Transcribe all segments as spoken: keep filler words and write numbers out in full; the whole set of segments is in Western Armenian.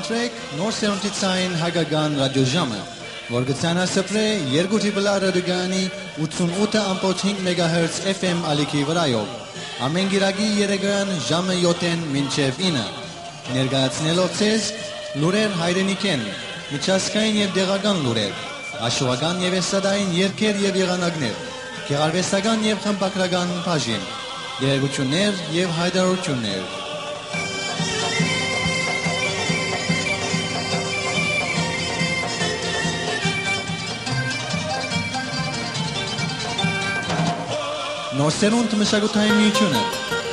Սրեք նոր սերունդի ցային հայկական ռադիոժամը, որ կը ցանասփռէ երկու Triple R ռադիոկայանի ութսունութ ըմբոց հինգ մեգահերց F M ալիքի վրայով, ամէն կիրակի երեկոյան ժամը յոթ մինչեւ ինը, ներկայացնելով ձեզ լուրեր հայրենիքէն, միջազգային եւ տեղական լուրեր, աշուական եւ էստրադային երգեր եւ եղանակներ, գեղարուեստական եւ խմբագրական բաժին, տեղեկութիւններ եւ յայտարարութիւններ։ Նոր սերունդ մշակութային միութիւնը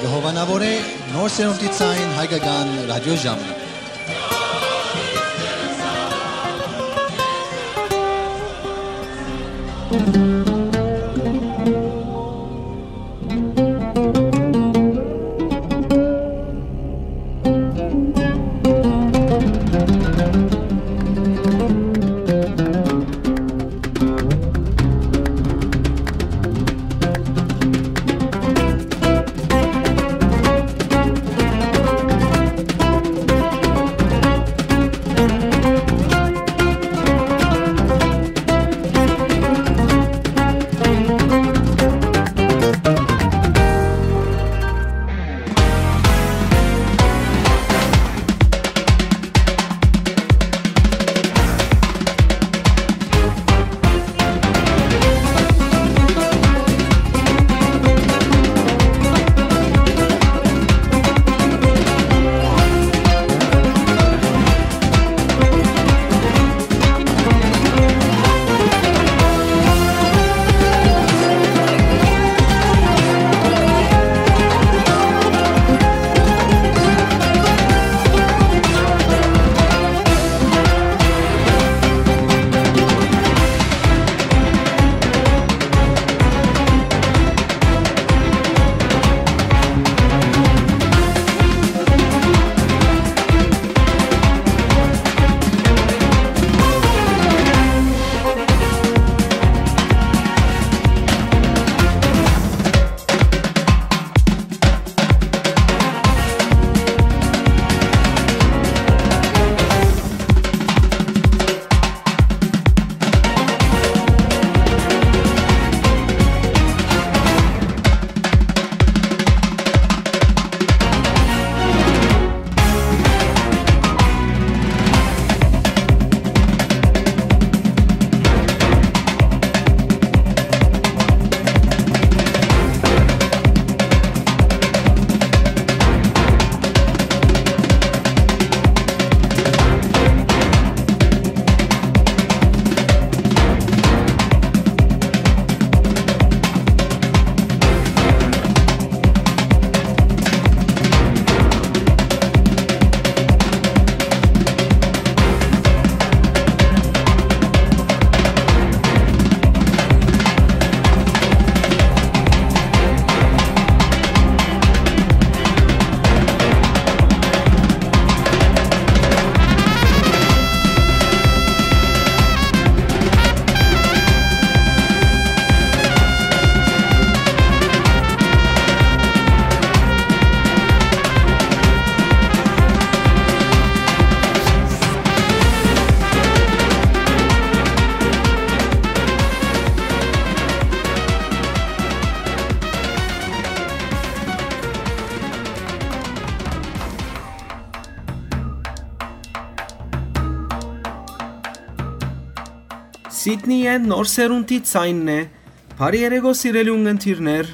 կը հովանաւորէ նոր սերունդի ցային հայկական ռադիոժամը։ Սիդնիը նոր սերունդի ցայնն է։ Բարի երեկո, սիրելի ունգընտիրներ։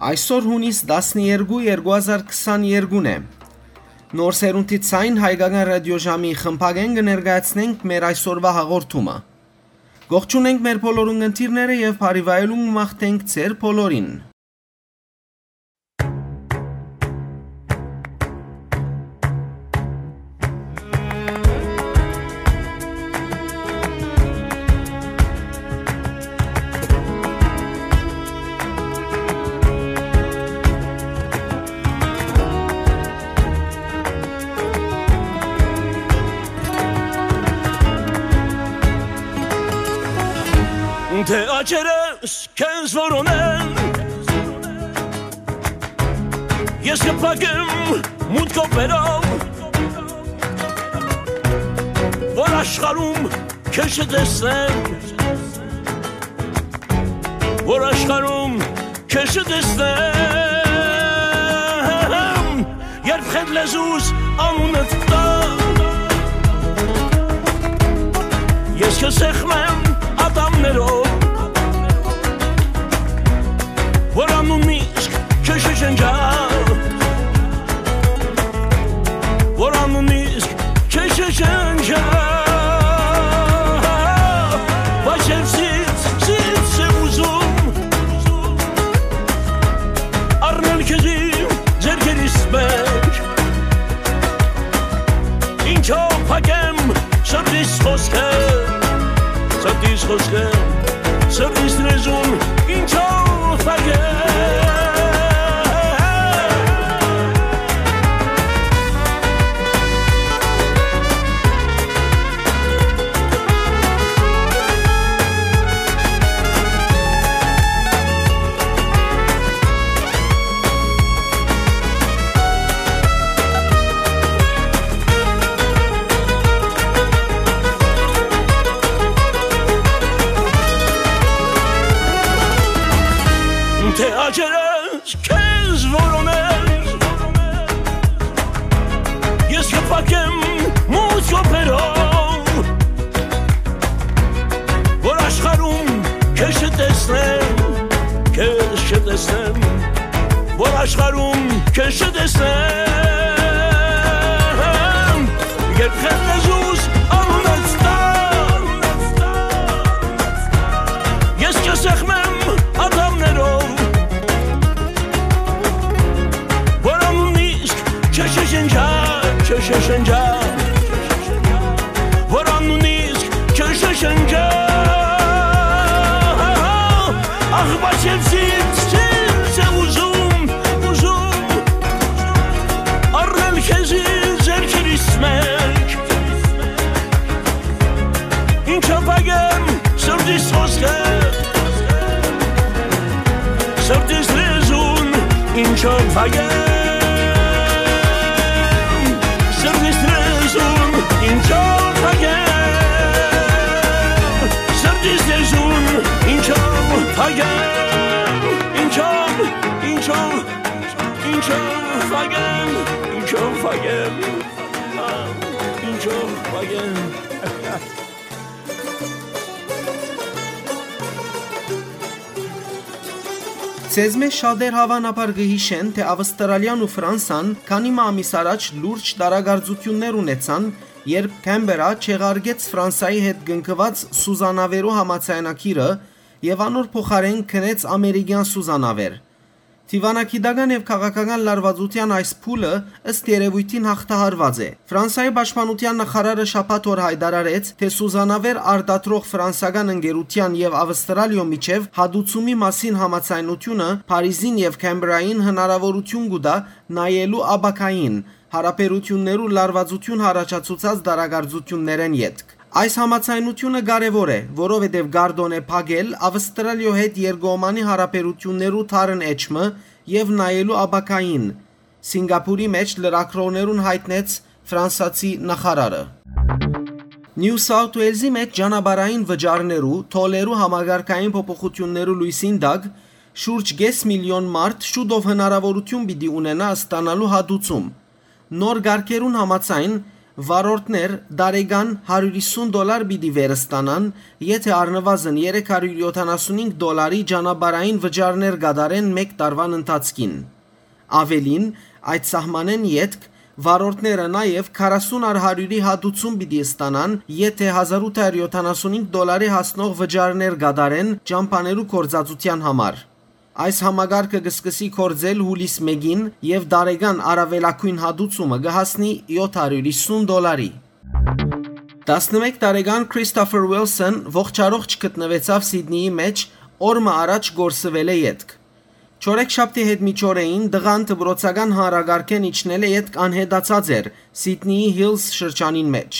Այսօր յունիս տասներկու, երկու հազար քսաներկուն է։ Նոր սերունդի ցայն հայկական ռադիոժամի խմբագէն կը ներկայացնենք մեր այսօրվա հաղորդումը։ Կողջունենք մեր բոլոր ունգընտիրները եւ բարի վայելում մաղթենք ձեր բոլորին։ Թէ աչերս քեզ որոնեն, ես կփակեմ մութ կոպերով, Որ աշխարհում քեզ չտեսնեմ, որ աշխարհում քեզ չտեսնեմ, երբ խետ լեզուս անունդ տա, ես քեզ սեղմեմ ատամներով, որ անունն իսկ քեզ չջնջա, որ անունն իսկ քեզ չջնջա, բայց երբ զինց, զինց է ուզում, առնել քեզ իմ ձեռքերիս մեջ, ինչով փակեմ սրտիս խօսքը, սրտիս խօսքը, սրտիս լեզուն, ինչով փակեմ։ Թէ աճերս քեզ որոնել, ես կփակեմ մութ կոփերով, որ աշխարհում քեզ չտեսնեմ, քեզ չտեսնեմ, որ աշխարհում քեզ չտեսնեմ, երբ խետ լեզուս անունդ տա, ես քեզ սեղմեմ ատամներով, որ անունն իսկ չշշնջա, չշշնջա, որ անունն իսկ չշշնջա, ախ, բայց ես ինձ, ինձ է ուզում, ուզում, առնել քեզի ձեռքերիս մեջ, ինչով փակեմ սրտիս խօսքը, սրտիս լեզուն, ինչով փակեմ, սրտիս լեզուն, ինչով փակեմ, սրտիս լեզուն, ինչով փակեմ, ինչով, ինչով, ինչով փակեմ, ինչով փակեմ, ինչով փակեմ։ Ձեզմէ շատեր հաւանաբար կը յիշեն, թէ Ավստրալիան ու Ֆրանսան քանի մը ամիս առաջ լուրջ տարակարծութիւններ ունեցան, երբ Քեմպերա չեղարկեց Ֆրանսայի հետ կնքուած սուզանավերու համաձայնագիրը եւ անոր փոխարէն գնեց ամերիկեան սուզանավեր։ Դիւանագիտական եւ քաղաքական լարուածութեան այս փուլը, ըստ երեւոյթին, յաղթահարուած է։ Ֆրանսայի պաշտպանութեան նախարարը շաբաթ օր յայտարարեց, թէ սուզանավեր արտադրող ֆրանսական ընկերութեան եւ Ավստրալիոյ միջեւ հատուցումի մասին համաձայնութիւնը Փարիզին եւ Քեմպերային հնարաւորութիւն կու տայ նայելու ապագային, յարաբերութիւններու լարուածութիւն յառաջացուցած տարակարծութիւններէն ետք։ Այս համաձայնութիւնը կարեւոր է, որովհետեւ կ'արտօնէ փակել Ավստրալիոյ հետ երկկողմանի յարաբերութիւններու դարն էջը եւ նայելու ապագային, Սինկապուրի մէջ լրագրողներուն յայտնեց ֆրանսացի նախարարը։ Նիու Սաութ Ուելզի մէջ ճանապարհային վճարներու, թոլերու համակարգային փոփոխութիւններու լոյսին տակ շուրջ կէս միլիոն մարդ շուտով հնարաւորութիւն պիտի ունենայ ստանալու հատուցում։ Նոր կարգերուն համաձայն, վարորդներ տարեկան հարիւր յիսուն դոլար պիտի վեր ստանան, եթէ առնուազն երեք հարիւր յոթանասունհինգ դոլարի ճանապարհային վճարներ կատարեն մէկ տարուան ընթացքին։ Աւելին, այդ սահմանէն ետք վարորդները նաեւ քառասուն առ հարիւրի հատուցում պիտի ստանան, եթէ հազար ութ հարիւր յոթանասունհինգ դոլարի հասնող վճարներ կատարեն ճամբաներու գործածութեան համար։ Այս համակարգը կը սկսի գործել յուլիս մէկին եւ տարեկան առաւելագոյն հատուցումը կը հասնի յոթ հարիւր յիսուն դոլարի։ Տասնմէկ տարեկան Քրիստոֆեր Ուիլսոն ողջառողջ գտնուեցաւ Սիդնիի մէջ օր մը առաջ կորսուելէ ետք։ Չորեքշաբթի յետ միջօրեին տղան դպրոցական հանրակարգէն իջնելէ ետք անհետացած էր Սիդնիի Հիլզ շրջանին մէջ։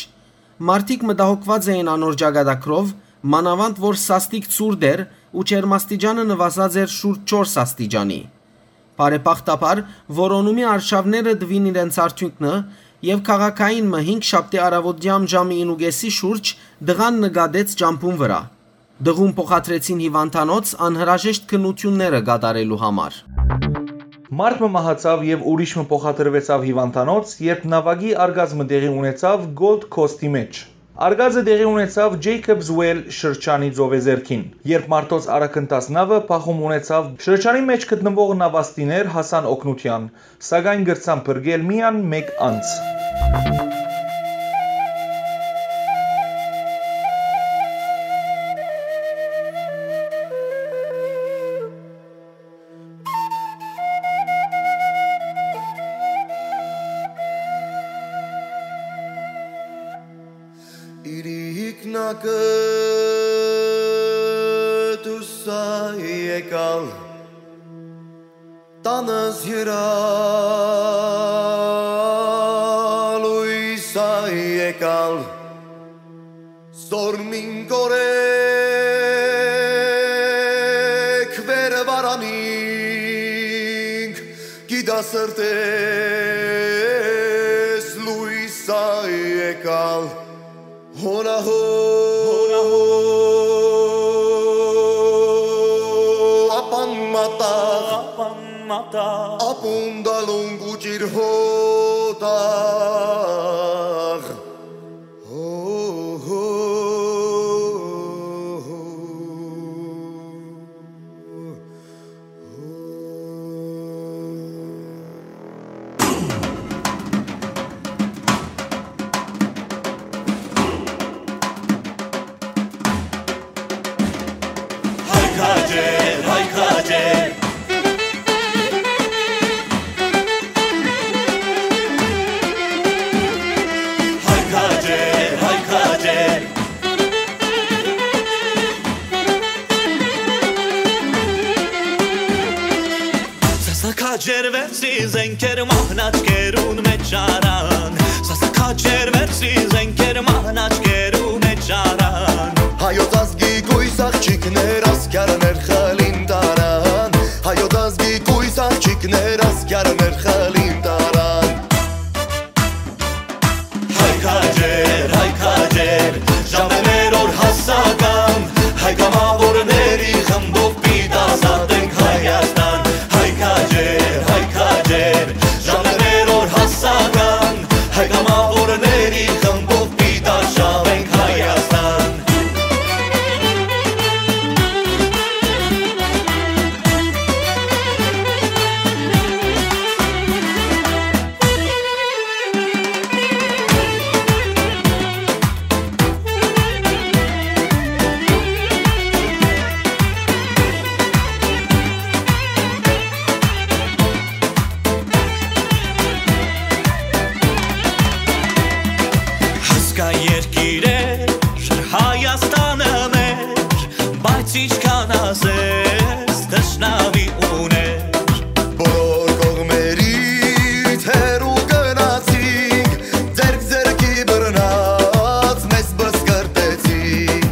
Մարդիկ մտահոգուած էին անոր ճակատագրով, մանաւանդ որ սաստիկ ցուրտ էր ու ջերմաստիճանը նուազած էր շուրջ չորս աստիճանի։ Բարեբախտաբար, որոնումի արշաւները տուին իրենց արդիւնքը Եւ քաղաքային մը հինգ շաբթի առաւօտեան ժամը ինու կէսի շուրջ տղան նկատեց ճամբուն վրայ։ Տղուն փոխադրեցին հիւանդանոց անհրաժեշտ քննութիւնները կատարելու համար։ Մարդ մը մահացաւ եւ ուրիշ մը փոխադրուեցաւ հիւանդանոց, երբ նաւակի արկած մը տեղի ունեցաւ Gold Coast-ի մէջ։ Արկածը տեղի ունեցաւ Jacob's Well շրջանի ծովեզերքին։ Երբ մարդոց արագընթաց նաւը փախում ունեցաւ, շրջանի մէջ գտնուող նաւաստիներ հասան օգնութեան, սակայն կրցան փրկել միայն մէկ անձ։ Իրիկնակը դուսա եկալ, տանս յրալույս ա եկալ, զոր մին կորեք վեր վարանինք, գիտասրտես լույս ա եկալ, հոնահո, հոնահո, ապան մատաղ, ապան մատաղ, ապուն դալուն կուճիր հոտաղ։ Հո, հո, հո, հո։ Հայ քաջեր, հայ քաջեր։ Հայ քաջեր, հայ քաջեր։ Սասա քաջեր վերցրի զենքեր մահնաճկերուն մեջ առան, սասա քաջեր վերցրի զենքեր մահնաճկերու մեջ առան։ Հայոց ազգի կույս աղջիկներ ասկյարներ խլին տարան, հայոց ազգի կույս աղջիկներ ասկյարներ խլին տարան։ Հայ քաջեր, հայ քաջեր, ժամերոր հասական, հայ կամավորների խմբով պիտի ազատենք Հայաստան։ Հայ քաջեր, հայ քաջեր, ժամերոր հասական, հայ կամավորների խմբով պիտի արշավենք Հայաստան։ Հասկայ երկիրեր, Հայաստանը մեր, բայց ինչքան ասես, թշնամի ուներ։ Բոլոր կողմերից հեռու գնացինք, ձեռք ձեռքի բռնած մեզ բսկրտեցին։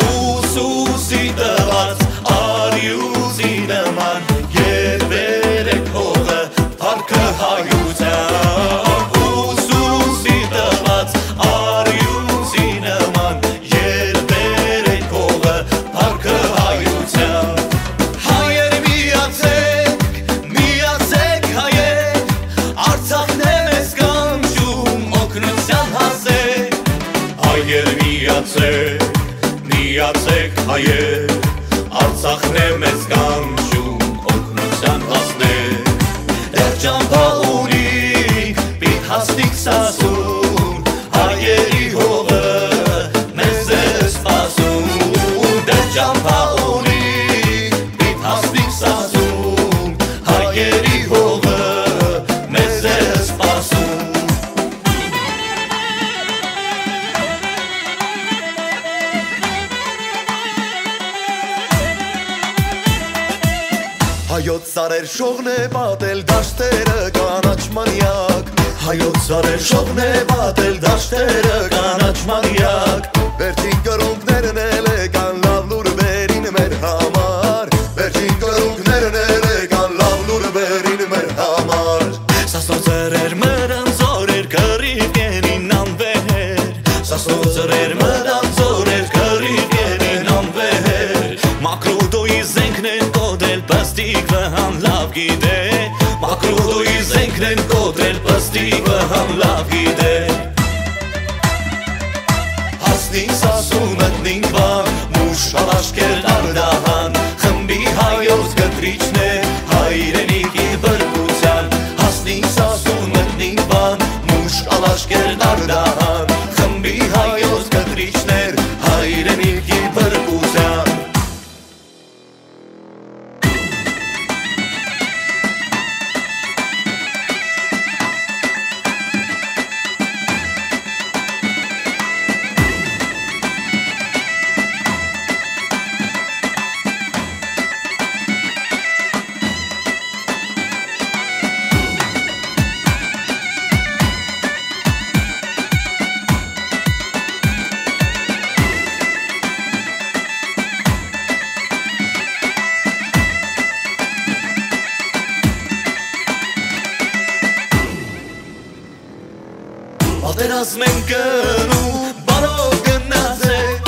Ուսուսի տված արիուսի նման, երբեր է հողը, փառքը հայության։ Ուսուսի տված արիուսի նման, երբեր է հողը, փառքը հայության։ Հայեր միացեք, միացեք հայեր, Արցախն է մեզ կանչում օգնության հասեք։ Հայեր միացեք, միացեք հայեր, Արցախն է մեզ կանչում օգնության հասնեք։ Դեռ ճամբա ունինք, պիտ հասնենք Սասուն, հայերի հողը մեզ է սպասում, դեռ ճամբա ունի, պիտի հասնենք Սասուն, հայերի հողը մեզ է սպասում։ Հայոց սարեր շողն է պատել դաշտերը կանաչ մանյակ, հայոց սարեր շողն է պատել դաշտերը կանաչ մանյակ։ Վերջին կրունկներն էլ եկան լաւ լուր վերին մեր համար, վերջին կրունկներն էլ եկան լաւ լուր վերին մեր համար։ Սասնոց սրեր մրան զորեր կռի Աշկերտ Արտահան, խմբի հայոց կտրիչներ, հայրենիքի բրկության, հասնի Սասուն, մտնի Վան, մուշ ալ Աշկերտ Արտահան, խմբի հայոց կտրիչներ, հայրենիքի բրկության։ Պատերազմ են գնում, բարով գնացեք,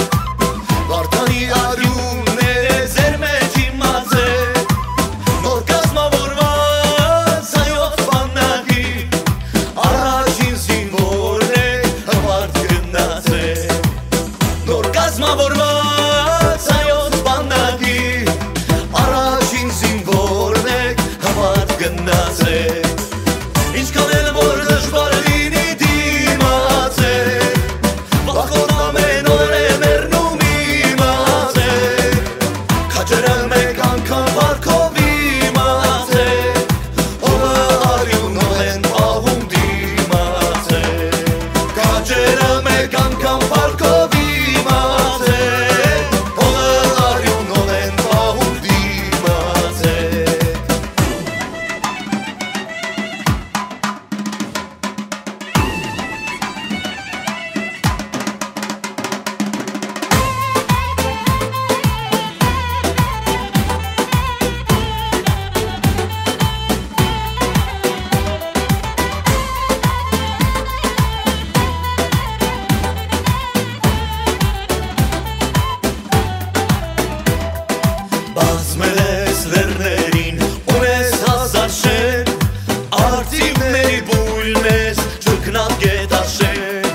Վարդանի արիունները ձեր մեջ իմացեք, նոր կազմավորված հայոց բանակի առաջին զինվորն է, հպարտ գնացեք, նոր կազմավորված հայոց բանակի առաջին զինվորն է, հպարտ գնացեք։ Ինչքան էլ որ դժուար լինի, դիմացեք, վախ կորնամ են օրը մեռնում իմացեք, քաջերը մեկ անգամ վարկով իմացեք, հողը արիունով են պահում, դիմացեք, քաջերը մեկ անգամ վարկով իմացեք, հողը արիունով են պահում, դիմացեք։ Բազմել ես լեռներին, ունես հազար շեն, արծիվների բույն ես, չքնապ գետաշեն,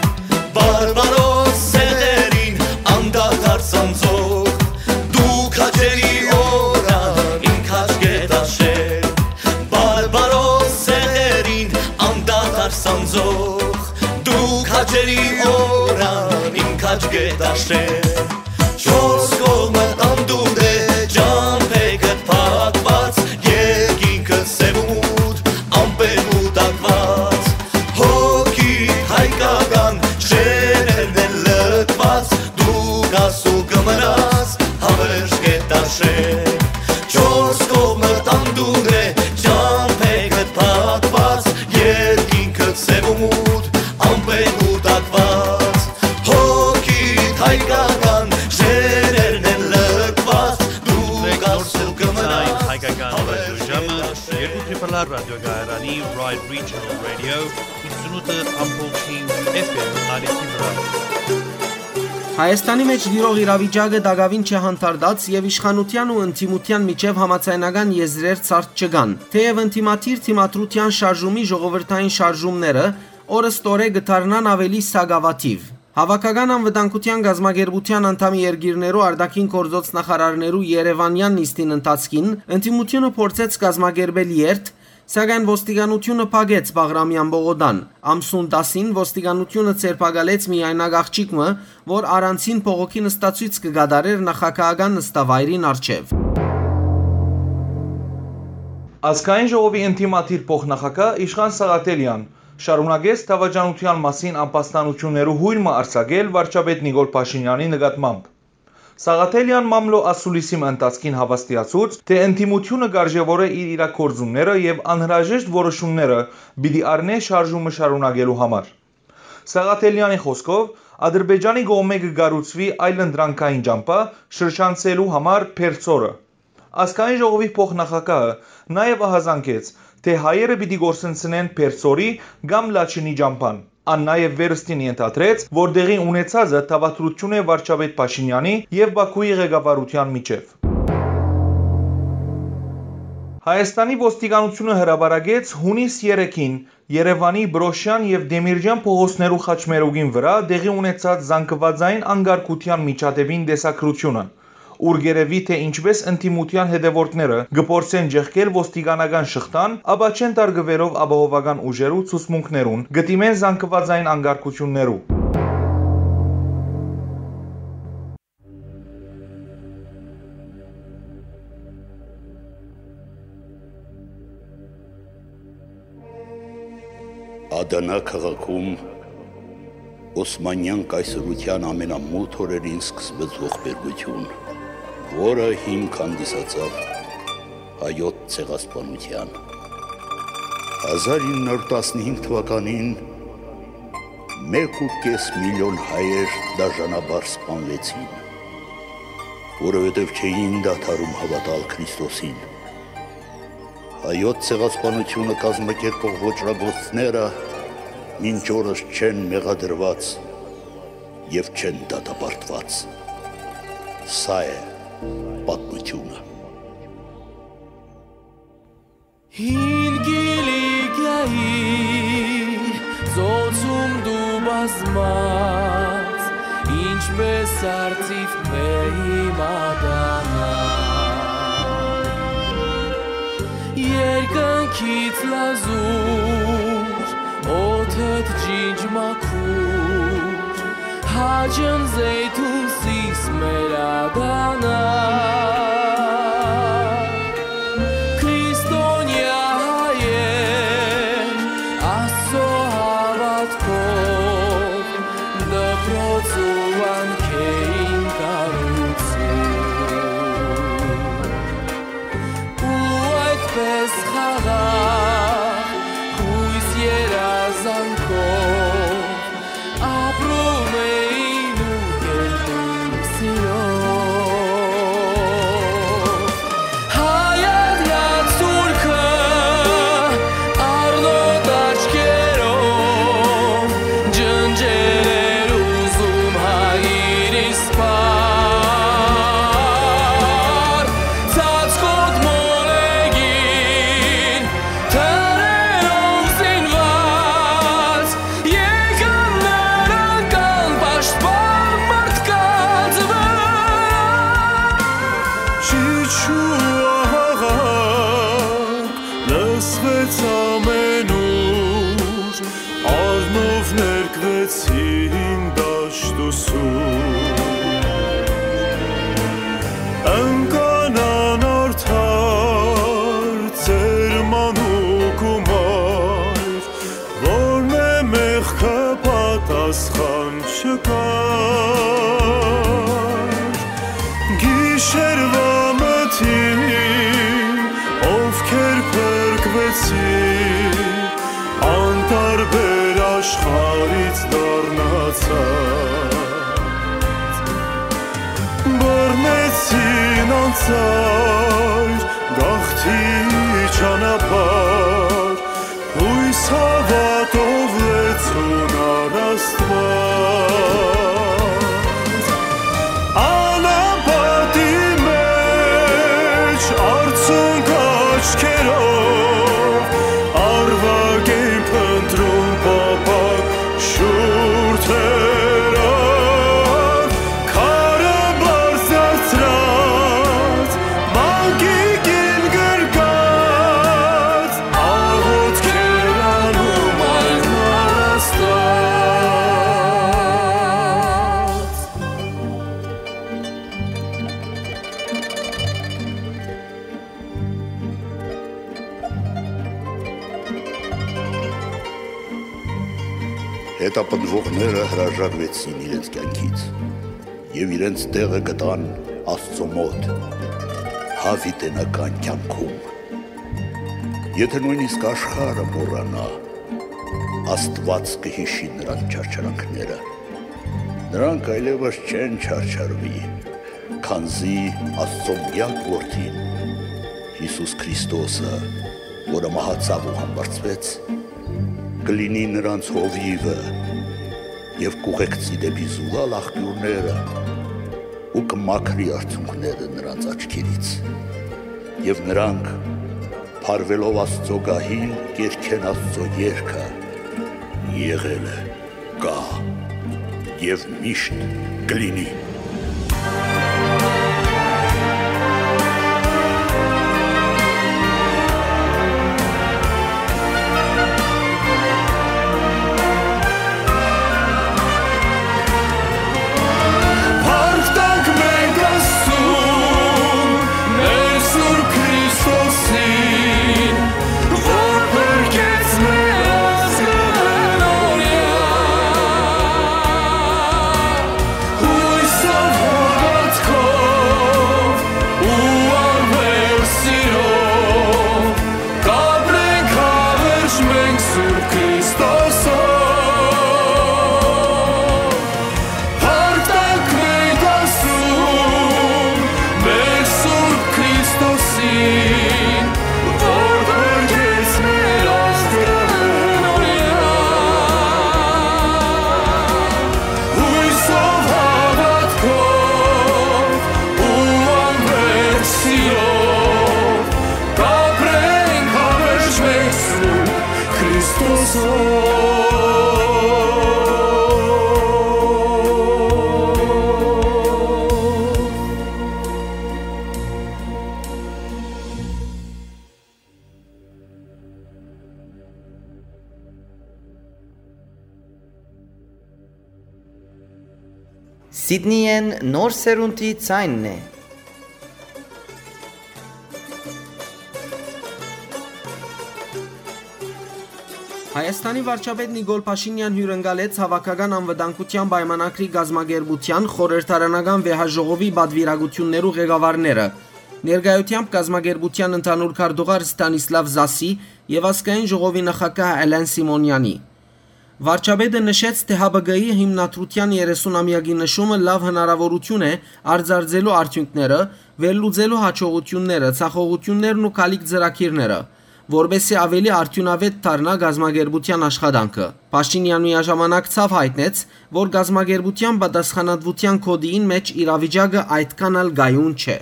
բարբարոս սեղերին անդադար սանձող, դու քաջերի օրան իմ քաջ գետաշեն, բարբարոս սեղերին անդադար սանձող, դու քաջերի օրան իմ քաջ գետաշեն, չորս կողմը անդունդ է, ճամփեքդ փակված, երկինքը սև ու մութ, ամպերու տակված, հոգի հայկական շեներն են լքված, դու կաս ու կմնաս, հավերժ կետաշեն, չորս կողմը անդունդ է, ճամփեքդ փակված, երկինքը սև ու մութ, ամպերու տակված, հոգիդ հայկական շեներն են լքված, դու Նոր կաս ու Սերունդի կմնաս, հայկական ռադիոժամը, երկու Triple R ռադիոկայարանի Ride Regional Radio, ութսունութ ամբողջ հինգ F M ալիքի վրայ։ Հայաստանի մէջ տիրող իրավիճակը տակաւին չէ հանդարտած եւ իշխանութեան ու ընդդիմութեան միջեւ համաձայնական եզրեր ցարդ չկան, թէեւ ընդդիմադիր դիմադրութեան շարժումի ժողովրդային շարժումները օրըստօրե կը դառնան աւելի սակաւաթիւ։ Հաւաքական անվտանգութեան կազմակերպութեան անդամի երկիրներու արտաքին գործոց նախարարներու երեւանեան նիստին ընթացքին ընդդիմութիւնը փորձեց կազմակերպել երթ, սակայն ոստիկանութիւնը փակեց Բաղրամեան պողոտան։ Ամսուն տասին ոստիկանութիւնը ձերբակալեց միայնակ աղջիկ մը, որ առանցին բողոքի նստացոյց կը կատարէր նախագահական նստավայրին առջեւ։ Ազգային ժողովի ընդդիմադիր փոխնախագահ Իշխան Սաղաթելեան շարունակեց դավաճանութեան մասին ամբաստանութիւններու յոյն մը արձակել վարչապետ Նիկոլ Փաշինեանի նկատմամբ։ Սաղաթելեան մամլոյ ասուլիսի մը ընթացքին հաւաստիացուց, թէ ընդդիմութիւնը կ'արժեւորէ իր իրագործումները եւ անհրաժեշտ որոշումները պիտի առնէ շարժումը շարունակելու համար։ Սաղաթելեանի խօսքով, Ադրբեջանի կողմէ կը կառուցուի այլընտրանքային ճամբայ շրջանցելու համար Փերծորը։ Ազգային ժողովի փոխնախագահը նաեւ ահազանգեց, թէ հայերը պիտի կորսնցնեն Փերծորի կամ Լաչինի ճամբան։ Ան նաեւ վերստին ենթադրեց, որ տեղի ունեցածը դաւադրութիւն է վարչապետ Փաշինեանի եւ Բաքուի ղեկավարութեան միջեւ։ Հայաստանի ոստիկանութիւնը հրապարակեց յունիս երեքին Երեւանի Պրոշեան եւ Դեմիրճեան փողոցներու խաչմերուկին վրայ տեղի ունեցած զանգվածային անկարգութեան միջադէպին տեսագրութիւնը, ուր կ'երեւի թէ ինչպէս ընդդիմութեան հետեւորդները կը փորձեն ճեղքել ոստիկանական շղթան, ապա չեն տարկուելով ապահովական ուժերու ցուցմունքներուն, կը դիմեն զանգուածային անկարգութիւններու։ Ադանա քաղաքում Օսմանեան կայսրութեան ամենամութ օրերին սկսուեց ողբերգութիւն, որը հիմք հանդիսացաւ հայոց ցեղասպանութեան։ Հազար ինը հարյուր տասնհինգ թուականին մէկ ու կէս միլիոն հայեր դաժանաբար սպանուեցին, որովհետեւ չէին դադարում հաւատալ Քրիստոսին։ Հայոց ցեղասպանութիւնը կազմակերպող ոճրագործները մինչ օրս չեն մեղադրուած եւ չեն դատապարտուած։ Սա է պատմութիւնը։ Հին Կիլիկիայի ծոցում դու բազմած, ինչպես արծիվ մեղի մատանա։ Երկնքից լազուր, օդդ ջինջ մաքուր, հաճն զեյթուն սիս մեր ադանա։ Քրիստոնեայ հայեր, Աստծո հաւատքով, դպրոց ու վանքէին կառուցում։ Ու այդպես խաղաղ, յոյս երազանքով, ապրում էին ու կերտում սիրով։ Հայ ադնած թուրքը առնոտ աչքերով ջնջել էր ուզում հայրիս պար, ծածկոտ մոլեգին թրերով զինված, եկան նրանք անպաշտպան մարդկանց վրա։ Ճիչ ու աղաղակ լսվեց ամենուր, առնով ներկվեցին դաշտ ու սուր։ Ընկան անարդար ծերմանուկ ու մայր, որմէ մեղքը պատասխան չկար։ Գիշերուայ մթին, ովքեր փրկուեցին, անտարբեր աշխարհից դառնացած, բռնեցին անծայր գաղթի ճանապարհ, յոյս հաւատով լեցուն առ Աստուած։ Անապատի մէջ արցունք աչքերով, առվակ են փնտռում փափաք շուրթերով, քարը բարձրացրած, մանկիկին գրկած, աղօթքեր անում այլ Աստուած։ Հետապնդուողները հրաժարուեցին իրենց կեանքից եւ իրենց տեղը գտան Աստծո մօտ, յաւիտենական կեանքում։ Եթէ նոյնիսկ աշխարհը մոռանայ, Աստուած կը յիշի նրանց չարչարանքները։ Նրանք այլեւս չեն չարչարուի, քանզի Աստծո միակ Որդին, Յիսուս Քրիստոսը, որը մահացաւ ու համբարձուեց, կը լինի նրանց հովիւը եւ կ'ուղեկցի դէպի զուլալ աղբիւրները ու կը մաքրի արցունքները նրանց աչքերից։ Եւ նրանք, փարուելով Աստծո գահին, կ'երգեն Աստծո երգը. «Եղել է, կայ եւ միշտ կը լինի»։ Սիդնիեն նոր սերունդի ձայնն է։ Հայաստանի վարչապետ Նիկոլ Փաշինեան հիւրընկալեց Հաւաքական անվտանգութեան պայմանագրի կազմակերպութեան խորհրդարանական վեհաժողովի պատուիրակութիւններու ղեկավարները։ Ներկայութեամբ կազմակերպութեան ընդհանուր քարտուղար Ստանիսլաւ Զասի եւ ազգային ժողովի նախագահ Էլեն Սիմոնեանի։ Վարչապետը նշեց, թէ Հ Բ Կ-ի հիմնադրութեան երեսուն ամեակի նշումը լաւ հնարաւորութիւն է արծարծելու արդիւնքները, վերլուծելու յաջողութիւնները, ձախողութիւններն ու գալիք ծրագիրները, որպէսզի աւելի արդիւնաւէտ դառնայ կազմակերպութեան աշխատանքը։ Փաշինեան միաժամանակ ցաւ յայտնեց, որ կազմակերպութեան պատասխանատուութեան գօտիին մէջ իրավիճակը այդքան ալ կայուն չէ։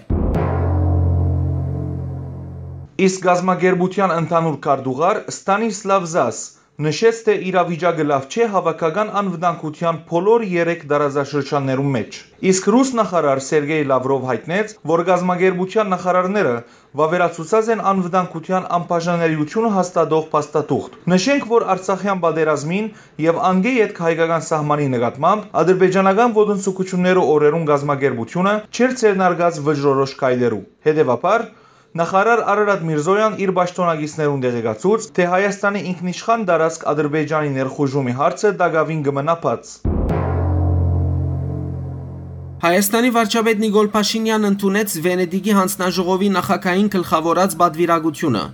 Իսկ կազմակերպութեան ընդհանուր քարտուղար Ստանիսլաւ Զաս նշեց, թէ իրավիճակը լաւ չէ հաւաքական անվտանգութեան բոլոր երեք տարածաշրջաններուն մէջ։ Իսկ ռուս նախարար Սերգեյ Լավրով յայտնեց, որ կազմակերպութեան նախարարները վաւերացուցած են անվտանգութեան անբաժանելիությունը հաստատող փաստաթուղթ։ Նշենք, որ Արցախեան պատերազմին եւ անկէ ետք հայկական սահմանի նկատմամբ ադրբեջանական ոտնձգութիւններու օրերուն կազմակերպութիւնը չէր ձեռնարկած վճռորոշ քայլերու։ Հետեւաբար, նախարար Արարատ Միրզոյան իր պաշտօնակիցներուն տեղեկացուց, թէ Հայաստանի ինքնիշխան տարածք Ադրբեջանի ներխուժումի հարցը տակաւին կը մնայ բաց։ Հայաստանի վարչապետ Նիկոլ Փաշինեան ընդունեց Վենետիկի յանձնաժողովի նախագահին գլխաւորած պատուիրակութիւնը։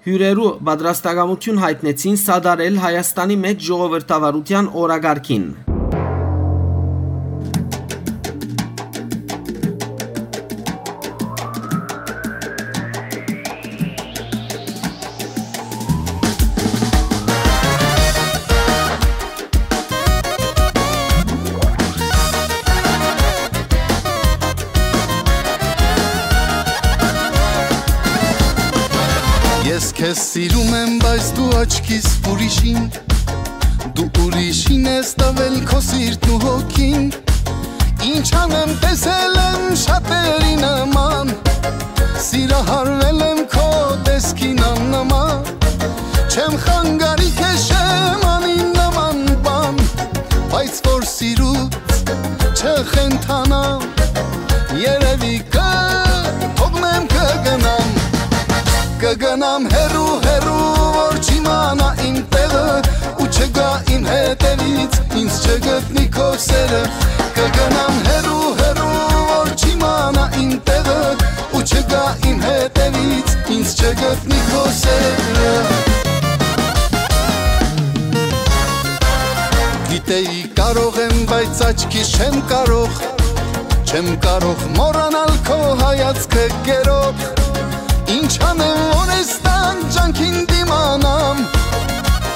Հիւրերու պատրաստակամութիւն յայտնեցին սատարել Հայաստանի մէջ ժողովրդավարութեան օրակարգին։ Ես քեզ սիրում եմ, բայց դու աչքիս ուրիշին, դու ուրիշին ես տվել քո սիրտն ու հոգին։ Ինչ անեմ, տեսել եմ շատերի նման, սիրահարվել եմ քո տեսքին աննման։ Չեմ խանգարի քեզ, չեմ անի նման բան, բայց որ սիրուց չխենթանամ, երևի կը թողնեմ, կը գնամ, կը գնամ հեռու, հեռու, որ չիմանայ իմ տեղը, ու չգայ իմ հետևից, ինձ չգտնի քո սերը, կը գնամ հեռու, հեռու, որ չիմանայ իմ տեղը, ու չգայ իմ հետևից, ինձ չգտնի քո սերը։ Գիտեի կարող եմ, բայց աչքիս չեմ կարող, չեմ կարող մոռանալ քո հայացքը գերող։ Ինչ անեմ, որ ես տան ջանքին դիմանամ,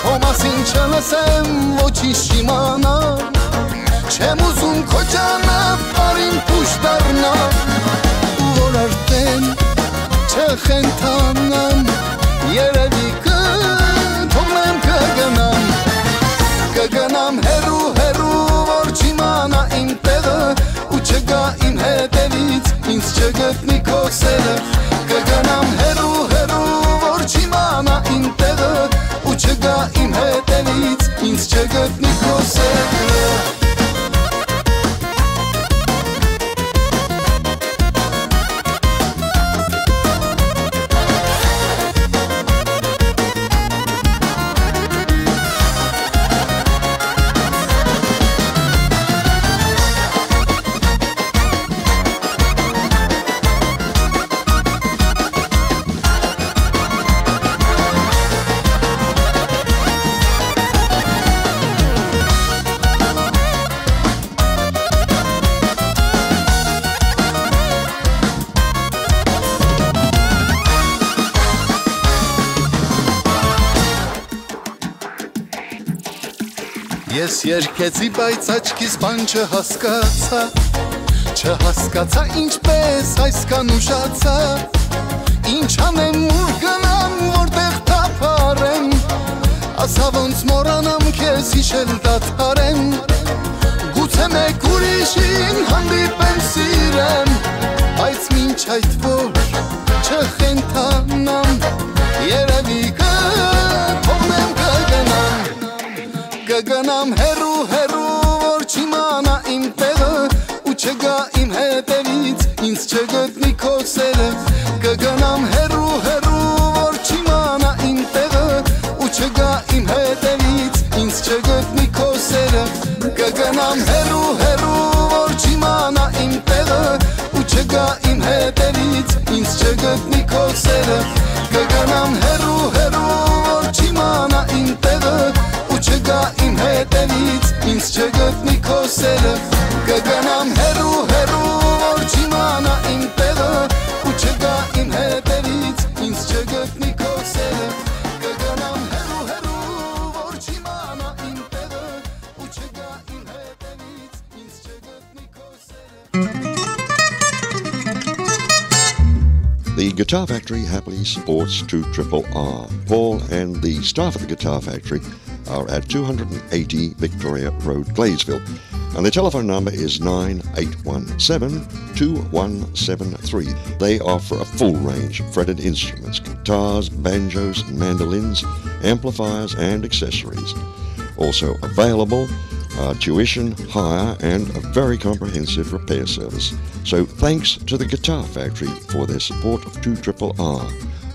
քո մասին չլսեմ, ոչինչ չիմանամ։ Չեմ ուզում քո ճանապարհին փուշ դառնամ, ու որ արդեն չխենթանամ, երևի կը թողնեմ, կը գնամ, կը գնամ հեռու, հեռու, որ չիմանայ իմ տեղը, ու չգայ իմ հետևից, ինձ չգտնի քո սերը, կը գնամ հեռու, հեռու, որ չիմանայ իմ տեղը, ու չգայ իմ հետևից, ինձ չգտնի քո սերը։ Ես երգեցի, բայց աչքիս բան չհասկացա, չհասկացա ինչպես այսքան ուշացա, ինչ անեմ, ուր գնամ, որտեղ թափարեմ, ասա ոնց մոռանամ քեզ, հիշել դադարեմ, գուցե մեկ ուրիշին հանդիպեմ, սիրեմ, բայց մինչ այդ որ չխենթանամ, երևի կը թողնեմ, կը գնամ, կը գնամ հեռու, հեռու, որ չիմանայ իմ տեղը, Չգտնի քո սերը, կգնամ հեռու, հեռու, որ չիմանայ իմ տեղը, ու չգայ իմ հետևից, ինձ չգտնի քո սերը, կգնամ հեռու, հեռու, որ չիմանայ իմ տեղը, ու չգայ իմ հետևից, ինձ չգտնի քո սերը, կգնամ հեռու, հեռու, որ չիմանայ իմ տեղը, ու չգայ իմ հետևից, ինձ չգտնի քո սերը, կգնամ հեռու, հեռու, որ չիմանայ իմ տեղը, ու չգայ իմ հետևից, ինձ չգտնի քո սերը, կգնամ հեռու, հեռու, որ չիմանայ իմ տեղը, ու չգայ իմ հետևից, ինձ չգտնի քո սերը։ The Guitar Factory happily supports two triple R. Paul and the staff at the Guitar Factory are at two hundred and eighty Victoria Road, Gladesville. And the telephone number is nine eight one seven, two one seven three. They offer a full range of fretted instruments, guitars, banjos, mandolins, amplifiers, and accessories. Also available, uh, tuition, hire, and a very comprehensive repair service. So thanks to the Guitar Factory for their support of two triple R.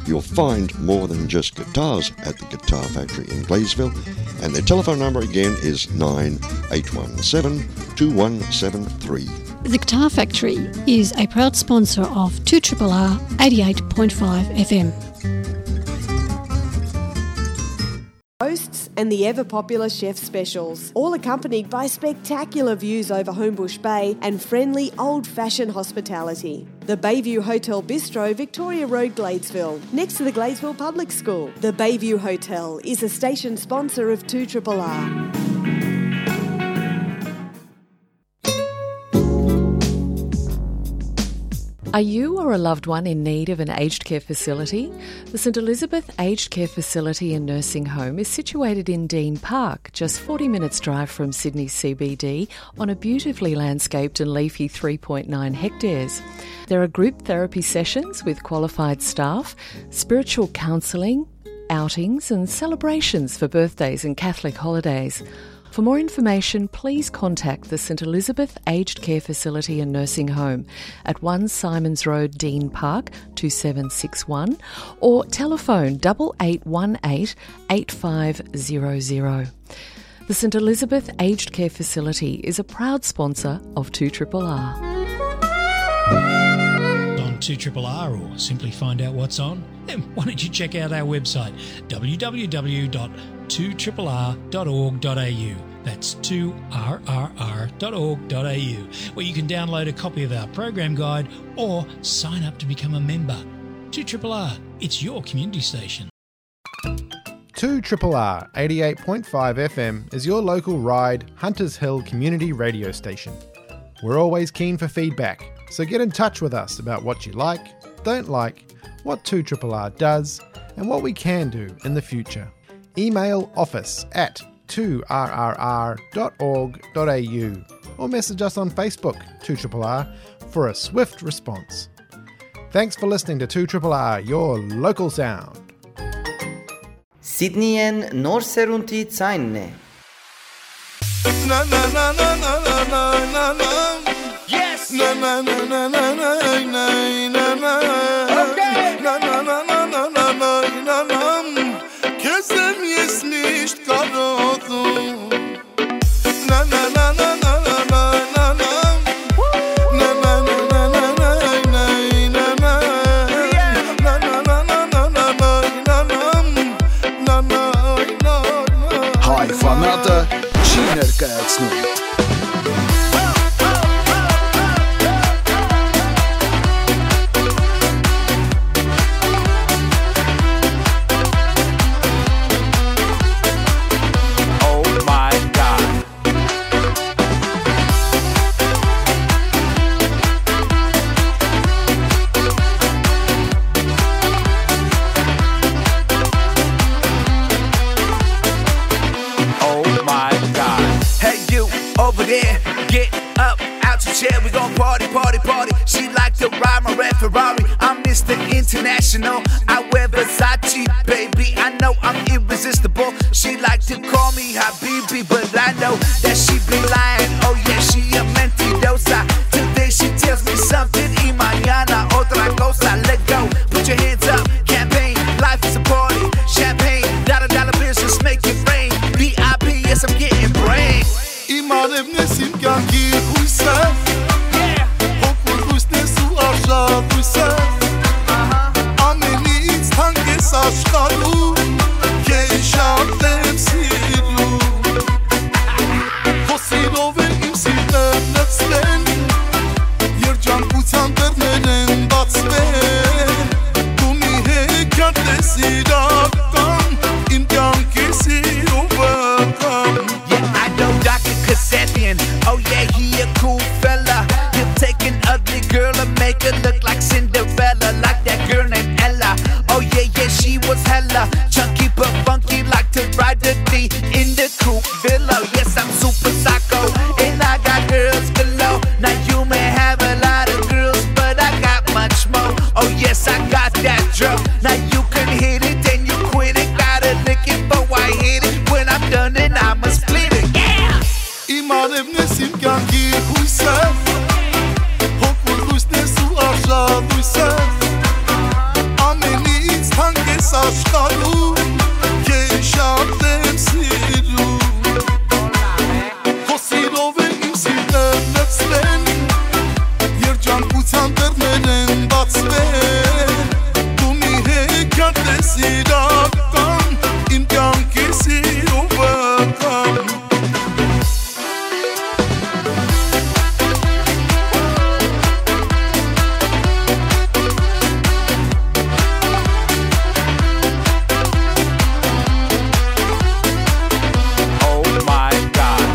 You'll find more than just guitars at the Guitar Factory in Gladesville, and their telephone number again is nine eight one seven, two one seven three. The Guitar Factory is a proud sponsor of two triple R eighty-eight point five F M. Roasts and the ever popular chef specials, all accompanied by spectacular views over Homebush Bay and friendly old-fashioned hospitality. The Bayview Hotel Bistro, Victoria Road, Gladesville, next to the Gladesville Public School. The Bayview Hotel is a station sponsor of two triple R. Are you or a loved one in need of an aged care facility? The St Elizabeth Aged Care Facility and Nursing Home is situated in Dean Park, just forty minutes drive from Sydney C B D, on a beautifully landscaped and leafy three point nine hectares. There are group therapy sessions with qualified staff, spiritual counselling, outings and celebrations for birthdays and Catholic holidays. For more information, please contact the St Elizabeth Aged Care Facility and Nursing Home at one Simons Road, Dean Park, two seven six one, or telephone double eight one eight, eight five zero zero. The St Elizabeth Aged Care Facility is a proud sponsor of two triple R. On two triple R, or simply find out what's on, then why don't you check out our website, w w w dot two triple r dot org dot a u. That's two r r r dot org dot a u, where you can download a copy of our program guide or sign up to become a member. Two triple R, it's your community station. Two triple R eighty-eight point five F M is your local Ryde Hunters Hill community radio station. We're always keen for feedback, so get in touch with us about what you like, don't like, what two triple R does, and what we can do in the future. Email office at two r r r dot org dot a u or message us on Facebook, two triple R, for a swift response. Thanks for listening to two triple R, your local sound. Սիդնիեն նոր սերունդի ձայնն է։ Yes. Okay. Քեզ եմ ես միշտ կարոտում։ Հայ ֆանատը չի ներկայացնում։ Oh my God. Oh my God. Hey, you over there, get up out your chair. We gon' party, party, party. She like to ride my red Ferrari. I'm Mister International. I wear Versace, baby. I know I'm irresistible. She like to call me Habibi, but I know that she be lying. Oh yeah, she a mentirosa. Today she tells me something in my Լուսը, ամենից թանկ ես աշխարհում, քեզ շատ եմ սիրում։ Քո սիրով է իմ սիրտը լցվել, երջանկության դռներն են բացվել, դու մի հեքիաթ ես իրական, իմ կյանքի սիրո վկան։ Yeah, I know Doctor Kasabian. Oh yeah, he a cool fella. He'll take an ugly girl and make her look like Cinderella, like that girl named Ella. Oh yeah, yeah, she was hella chunky but funky, like to ride the D in the coupe villa. Yes, I'm super psycho, and I got girls galore. Now you may have a lot of girls, but I got much more. Oh yes, I got that drug. Now you can hit it, then you quit it. Gotta lick it, but why hit it? When I'm done, then I'ma split it. Yeah! Իմ արեւն ես, իմ կյանքի հույսը, հոգու լույսն ես ու արժանույսը, ամենից թանկ ես աշխարհում, քեզ շատ եմ սիրում։ Քո սիրով է իմ սիրտը լցվել, երջանկության դռներն են բացվել, դու մի հեքիաթ ես իրական, իմ կյանքի սիրո վկան։ Oh my God.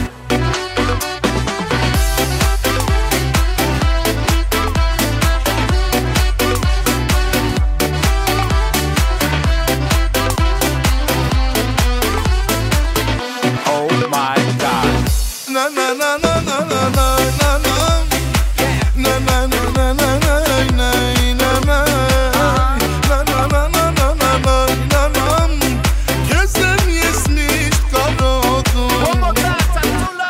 Oh my God. Քեզ եմ ես միշտ կարոտում։ One more time, Tantula.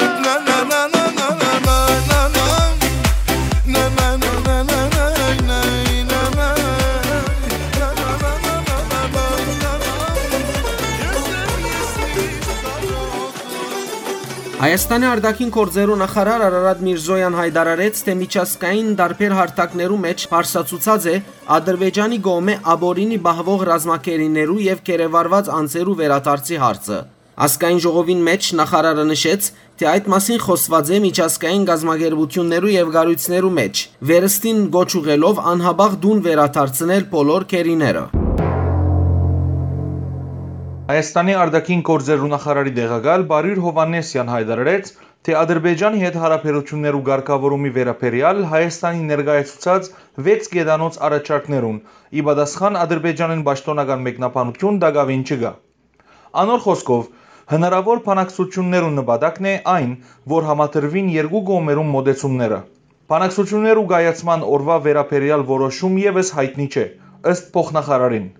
Հայաստանի արտաքին գործերու նախարար Արարատ Միրզոյան յայտարարեց, թէ միջազգային տարբեր հարթակներու մէջ բարձրացուցած է Ադրբեջանի կողմէ ապօրինի պահուող ռազմագերիներու եւ գերեվարված անձերու վերադարձի հարցը։ Ազգային ժողովին մէջ նախարարը նշեց, թէ այդ մասին խօսուած է միջազգային կազմակերպութիւններու եւ կառոյցներու մէջ, վերստին կոչ ուղղելով անհապաղ տուն վերադարձնել բոլոր գերիները։ Հայաստանի արտաքին գործերու նախարարի տեղակալ Բարիր Հովհաննիսեան յայտարարեց, թէ Ադրբեջանի հետ յարաբերութիւններու կարգաւորումի վերաբերեալ Հայաստանի ներկայացուցած վեց կեդանոց առաջարկներուն ի պատասխան Ադրբեջանին պաշտօնական մեկնաբանութիւն տակաւին չկայ։ Անոր խօսքով, հնարաւոր բանակցութիւններու նպատակն է այն, որ համադրուին երկու կողմերուն մօտեցումները։ Բանակցութիւններու կայացման օրուայ վերաբերեալ որոշում եւս յայտնի չէ, ըստ փոխնախարարին։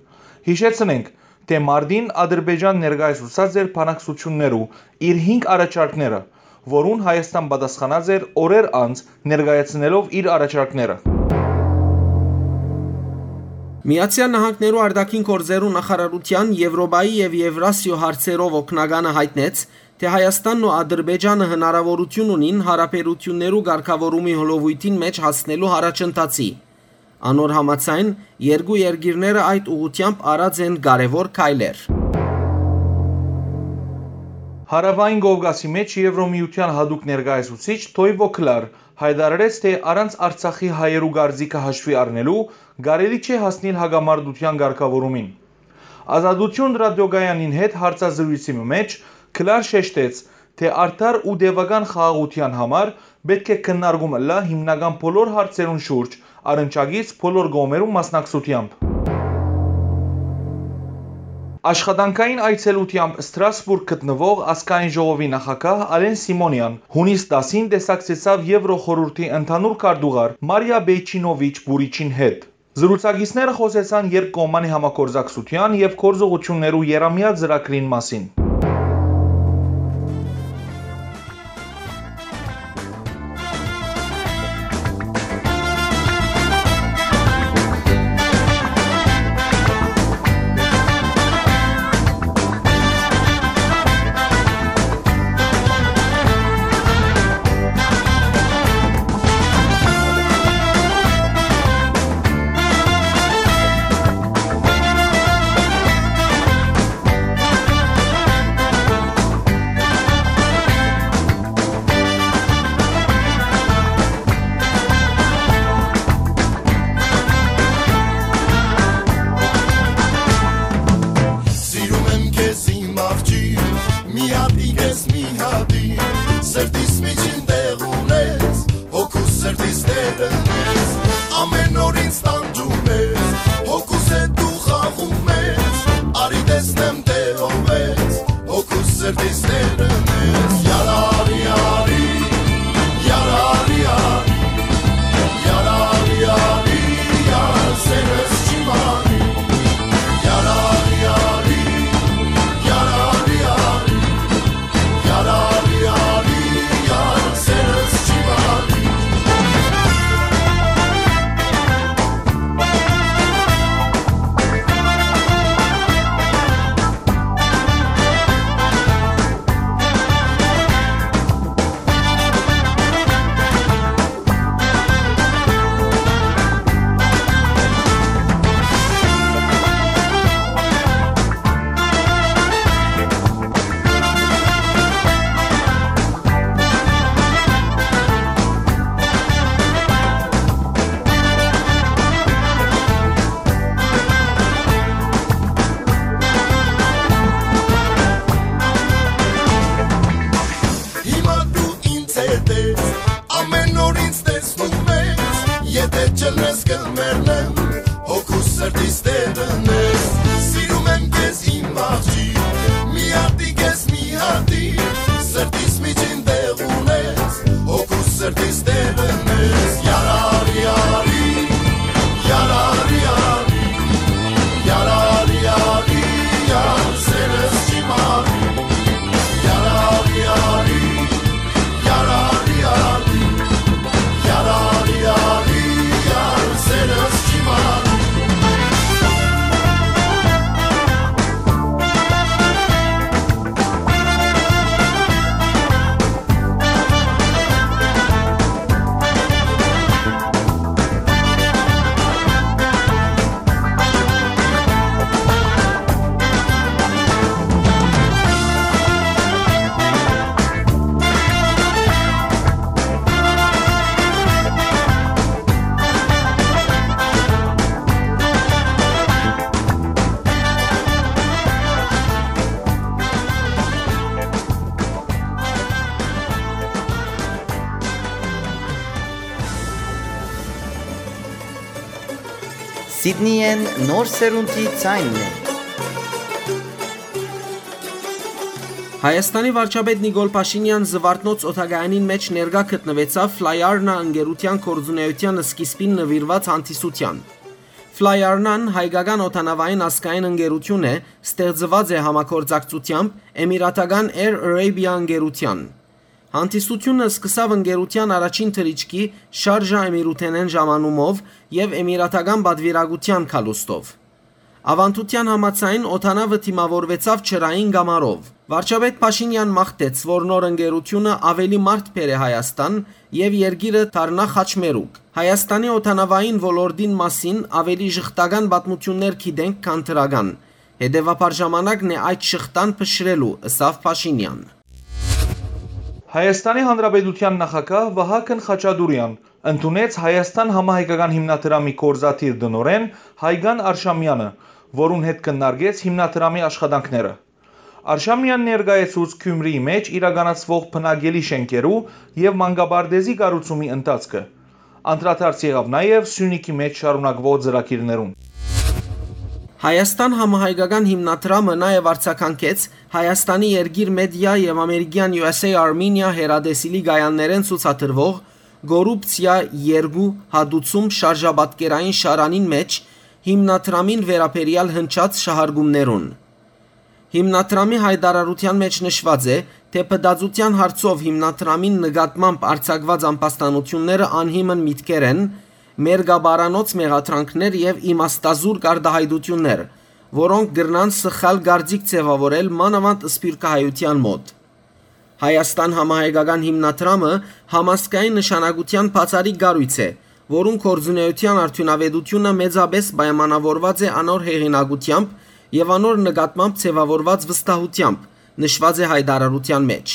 Յիշեցնենք, թէ մարտին Ադրբեջան ներկայացուցած էր բանակցութիւններու իր հինգ առաջարկները, որուն Հայաստան պատասխանած էր օրեր անց՝ ներկայացնելով իր առաջարկները։ Միացեալ Նահանգներու արտաքին գործերու նախարարութեան Եւրոպայի եւ Եվրասիոյ հարցերով օգնականը յայտնեց, թէ Հայաստանն ու Ադրբեջանը հնարաւորութիւն ունին յարաբերութիւններու կարգաւորումի հոլովոյթին մէջ հասնելու յառաջընթացի։ Անոր համաձայն, երկու երկիրները այդ ուղղութեամբ արած են կարեւոր քայլեր։ Հարաւային Կովկասի մէջ Եվրոմիութեան յատուկ ներկայացուցիչ Թոյվո Քլար յայտարարեց, թէ առանց Արցախի հայերու կարծիքը հաշուի առնելու, կարելի չէ հասնիլ հակամարտութեան կարգաւորումին։ Ազատություն ռադիոկայանին հետ հարցազրոյցի մը մէջ Քլար շեշտեց, թէ արդար ու տեւական խաղաղութեան համար պէտք է քննարկում ըլլայ հիմնական բոլոր հարցերուն շուրջ, առնչակից բոլոր կողմերուն մասնակցութեամբ։ Աշխատանքային այցելութեամբ Ստրասբուրգ գտնուող Ազգային ժողովի նախագահ Ալեն Սիմոնեան յունիս տասին տեսակցեցաւ Եվրոխորհուրդի ընդհանուր քարտուղար Մարիա Բեյչինովիչ Բուրիչին հետ։ Զրուցակիցները խօսեցան երկկողմանի համագործակցութեան եւ գործողութիւններու եռամեայ ծրագրին մասին։ Հոգու սրտիս տերն ես, սիրում եմ քեզ իմ աղջիկ, մի հատի քեզ մի հատի, սրտիս միջին տեղ ունես, հոգու սրտիս տերն ես, յարարի արի, յարարի արի, յարարի արի, յար սերս չի մարի, յարարի արի, յարարի արի, յարարի արի, յար սերս չի մարի։ Սիդնիեն նոր սերունդի ձայնն է։ Հայաստանի վարչապետ Նիկոլ Փաշինեան Զվարթնոց օդակայանին մէջ ներկայ գտնուեցաւ Ֆլայարնա ընկերութեան գործունեութեան սկիզբին նուիրուած հանդիսութեան։ Ֆլայարնան հայկական օդանավային ազգային ընկերութիւն է, ստեղծուած է համագործակցութեամբ Էմիրատական Air Arabia ընկերութեան։ Հանդիսութիւնը սկսաւ ընկերութեան առաջին թռիչքի Շարժա Էմիրութենէն ժամանումով եւ էմիրատական պատուիրակութեան գալուստով։ Աւանդութեան համաձայն, օդանաւը դիմաւորուեցաւ ջրային կամարով։ Վարչապետ Փաշինեան մաղթեց, որ նոր ընկերութիւնը աւելի մարդ բերէ Հայաստան եւ երկիրը դառնայ խաչմերուկ։ Հայաստանի օդանաւային ոլորտին մասին աւելի ժխտական պատմութիւններ գիտենք, քան դրական։ Հետեւաբար ժամանակն է այդ շղթան փշրելու, ըսաւ Փաշինեան։ Հայաստանի Հանրապետութեան նախագահ Վահագն Խաչատուրեան ընդունեց Հայաստան համահայկական հիմնադրամի գործադիր տնօրէն Հայկան Արշամեանը, որուն հետ քննարկեց հիմնադրամի աշխատանքները։ Արշամեան ներկայացուց Գիւմրիի մէջ իրականացուող բնակելի շէնքերու եւ մանկապարտէզի կառուցումի ընթացքը։ Անդրադարձ եղաւ նաեւ Սիւնիքի մէջ շարունակուող ծրագիրներուն։ Հայաստան համահայկական հիմնադրամը նաեւ արձագանքեց Հայաստանի երկիր մեդիա եւ ամերիկեան U S A Armenia հեռատեսիլի կայաններէն ցուցադրուող Կոռուպցիա երկու հատուցում շարժապատկերային շարանին մէջ հիմնադրամին վերաբերեալ հնչած շահարկումներուն։ Հիմնադրամի յայտարարութեան մէջ նշուած է, թէ փտածութեան հարցով հիմնադրամին նկատմամբ արձակուած ամբաստանութիւնները անհիմն միտքեր են, մեր գաբարանոց մեղադրանքներ եւ իմաստազուրկ արտայայտութիւններ, որոնք կրնան սխալ կարծիք ձեւաւորել մանաւանդ սփիւռքահայութեան մօտ։ Հայաստան համահայկական հիմնադրամը համազգային նշանակութեան բացառիկ կառոյց է, որուն գործունեութեան արդիւնաւէտութիւնը մեծապէս պայմանաւորուած է անոր հեղինակութեամբ եւ անոր նկատմամբ ձեւաւորուած վստահութեամբ, նշուած է յայտարարութեան մէջ։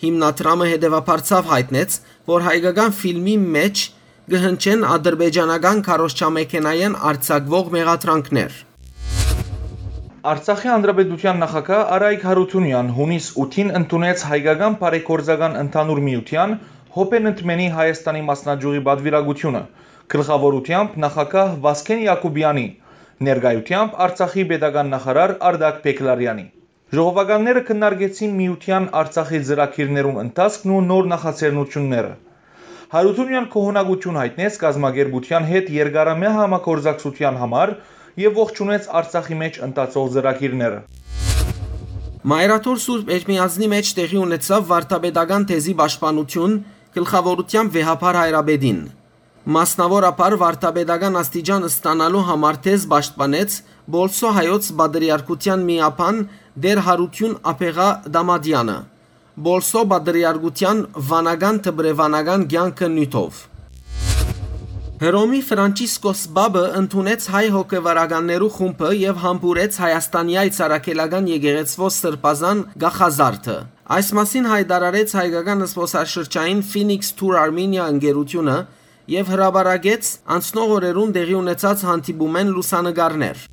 Հիմնադրամը հետեւաբար ցաւ յայտնեց, որ հայկական ֆիլմի մէջ կը հնչեն ադրբեջանական քարոզչամեքենայէն արձակուող մեղադրանքներ։ Արցախի Հանրապետութեան նախագահ Արայք Յարութունեան յունիս ութին ընդունեց Հայկական բարեգործական ընդհանուր միութեան Հոբենտմենի Հայաստանի մասնաճյուղի պատուիրակութիւնը, գլխաւորութեամբ նախագահ Վասկեն Յակուբեանի, ներկայութեամբ Արցախի պետական նախարար Արտակ Բեգլարեանի։ Ժողովականները քննարկեցին միութեան Արցախի ծրագիրներուն ընթացքն ու նոր նախաձեռնութիւնները։ Յարութունեան գոհունակութիւն յայտնեց կազմակերպութեան հետ երկարամեայ համագործակցութեան համար եւ ողջունեց Արցախի մէջ ընթացող ծրագիրները։ Մայրաթոր Սուրբ Էջմիածնի մէջ տեղի ունեցաւ վարդապետական թեզի պաշտպանութիւն գլխաւորութեամբ վեհափառ հայրապետին։ Մասնաւորաբար վարդապետական աստիճան ստանալու համար թեզ պաշտպանեց Պոլսոյ հայոց պատրիարքութեան միաբան Տէր Յարութիւն Աբեղա Դամատեանը, Պոլսոյ պատրիարքութեան վանական դպրեվանական կեանքը նիւթով։ Հռոմի Ֆրանչիսկոս Պապը ընդունեց հայ հոգեվարականներու խումբը եւ համբուրեց Հայաստանեայ Ծառագելական եկեղեցւոյ սրբազան կախազարդը։ Այս մասին յայտարարեց հայկական զբօսաշրջային Phoenix Tour Armenia ընկերութիւնը եւ հրապարակեց անցնող օրերուն տեղի ունեցած հանդիպումէն լուսանկարներ։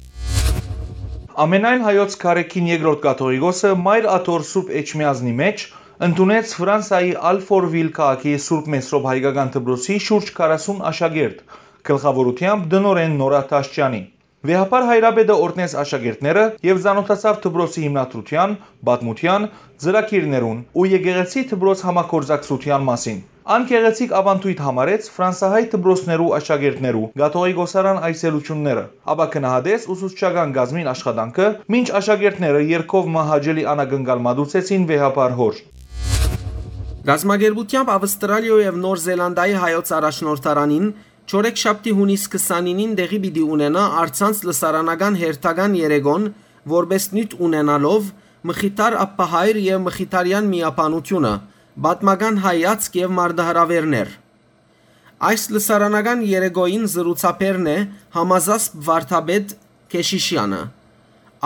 Ամենայն հայոց Գարեգին երկրորդ կաթողիկոսը Մայր Աթոռ Սուրբ Էջմիածնի մէջ ընդունեց Ֆրանսայի Ալֆորվիլ քաղաքի Սուրբ Մեսրոպ հայկական դպրոցի շուրջ քառասուն աշակերտ, գլխաւորութեամբ տնօրէն Նորա Թաշճեանի։ Վեհափառ հայրապետը օրհնեց աշակերտները եւ ծանօթացաւ դպրոցի հիմնադրութեան, պատմութեան, ծրագիրներուն ու եկեղեցի դպրոց համագործակցութեան մասին։ Ան գեղեցիկ աւանդոյթ համարեց ֆրանսահայ դպրոցներու աշակերտներու կաթողիկոսական այցելութիւնները, ապա գնահատեց ուսուցչական կազմին աշխատանքը, մինչ աշակերտները երգով մը հաճելի անակնկալ մատուցեցին վեհափառ հօր։ Կազմակերպութեամբ Ավստրալիոյ եւ Նոր Զելանդիայի հայոց առաջնորդարանին չորեքշաբթի, յունիս քսանինին տեղի պիտի ունենայ առցանց լսարանական հերթական երեկոն, որպէս նիւթ ունենալով Մխիթար Աբբահայր եւ Մխիթարեան միաբանութիւնը, պատմական հայացք եւ մարտահրաւէրներ։ Այս լսարանական երեկոյին զրուցաբերն է համազասպ վարդապետ Քեշիշեանը։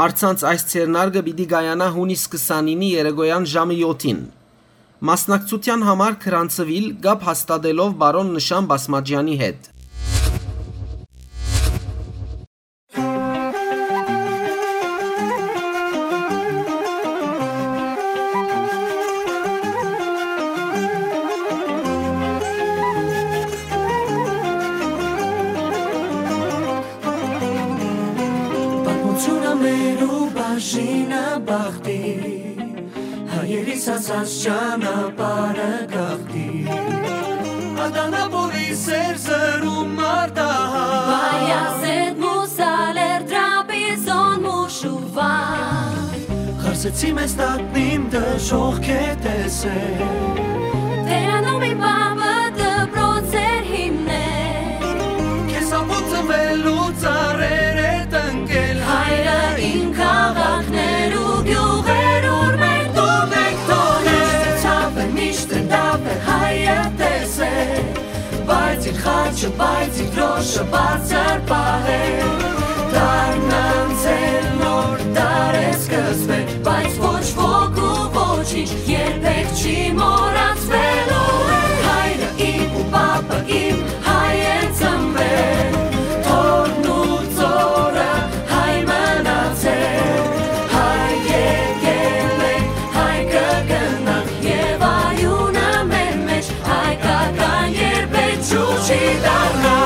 Առցանց այս ձեռնարկը պիտի կայանայ յունիս քսանինի երեկոյեան ժամը յոթին։ Մասնակցութեան համար գրանցուիլ կապ հաստատելով պարոն Նշան Բասմաճեանի հետ։ Պատմութիւնը մեր ու բաժինը բախտի, հայերիս ասած ճանապարհը գաղթի։ Ադանապոլի սեր զրում մարտահայ, Բայազետ մուսալեր Տրապիզոն մուշուվա, խարսեցի մեզ տատնիմ դժոխք է տեսե։ Տերանոմի պապը դպրոց էր հիմնել, քեզ ապուծվելու ծառեր է տնկել։ Հայրը իմ քաղաքներ ու գիւղեր, ուր մենք դու մենք թողել, ցավել միշտ դապ է հայը տեսել, բայց իր խաչը, բայց իր դրոշը բարձր պահել։ Դարն անցել նոր դար է սկսվել, բայց ոչ ոք ու ոչինչ երբեք չի մոռացվելու։ Հայրը իմ ու պապը իմ հայ են ծնվել, թորն ու ծորը հայ մնացել, հայ եկել ենք, հայ կգնանք, եւ արիւնը մեր մեջ հայկական երբեք ջուր չի դառնա։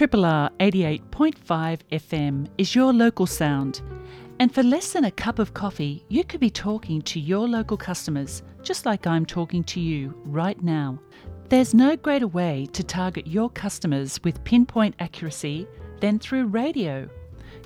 Triple R eighty-eight point five F M is your local sound. And for less than a cup of coffee, you could be talking to your local customers, just like I'm talking to you right now. There's no greater way to target your customers with pinpoint accuracy than through radio.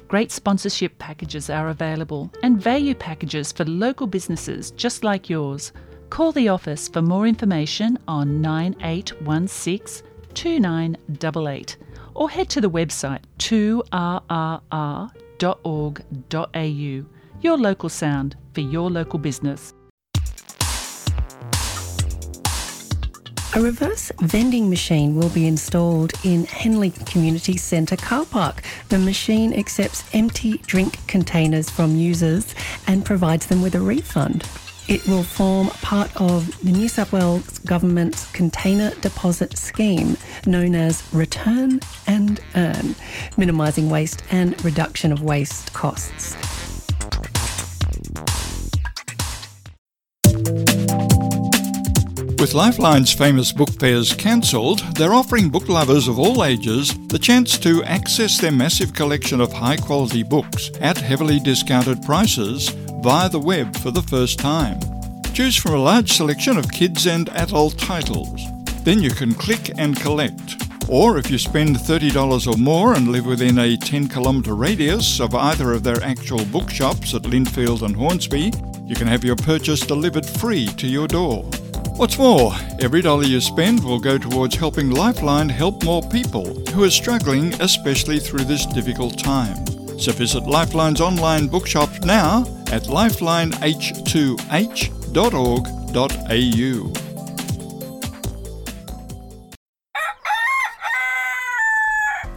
Great sponsorship packages are available and value packages for local businesses just like yours. Call the office for more information on nine eight one six two nine double eight or head to the website two R R R dot org dot A U. Your local sound for your local business. A reverse vending machine will be installed in Henley Community Centre car park. The machine accepts empty drink containers from users and provides them with a refund. It will form part of the New South Wales Government's Container Deposit Scheme, known as Return and Earn, minimising waste and reduction of waste costs. With Lifeline's famous book fairs cancelled, they're offering book lovers of all ages the chance to access their massive collection of high-quality books at heavily discounted prices via the web for the first time. Choose from a large selection of kids and adult titles. Then you can click and collect. Or if you spend thirty dollars or more and live within a ten kilometre radius of either of their actual bookshops at Lindfield and Hornsby, you can have your purchase delivered free to your door. What's more, every dollar you spend will go towards helping Lifeline help more people who are struggling, especially through this difficult time. So visit Lifeline's online bookshop now at lifeline h two h dot org dot a u.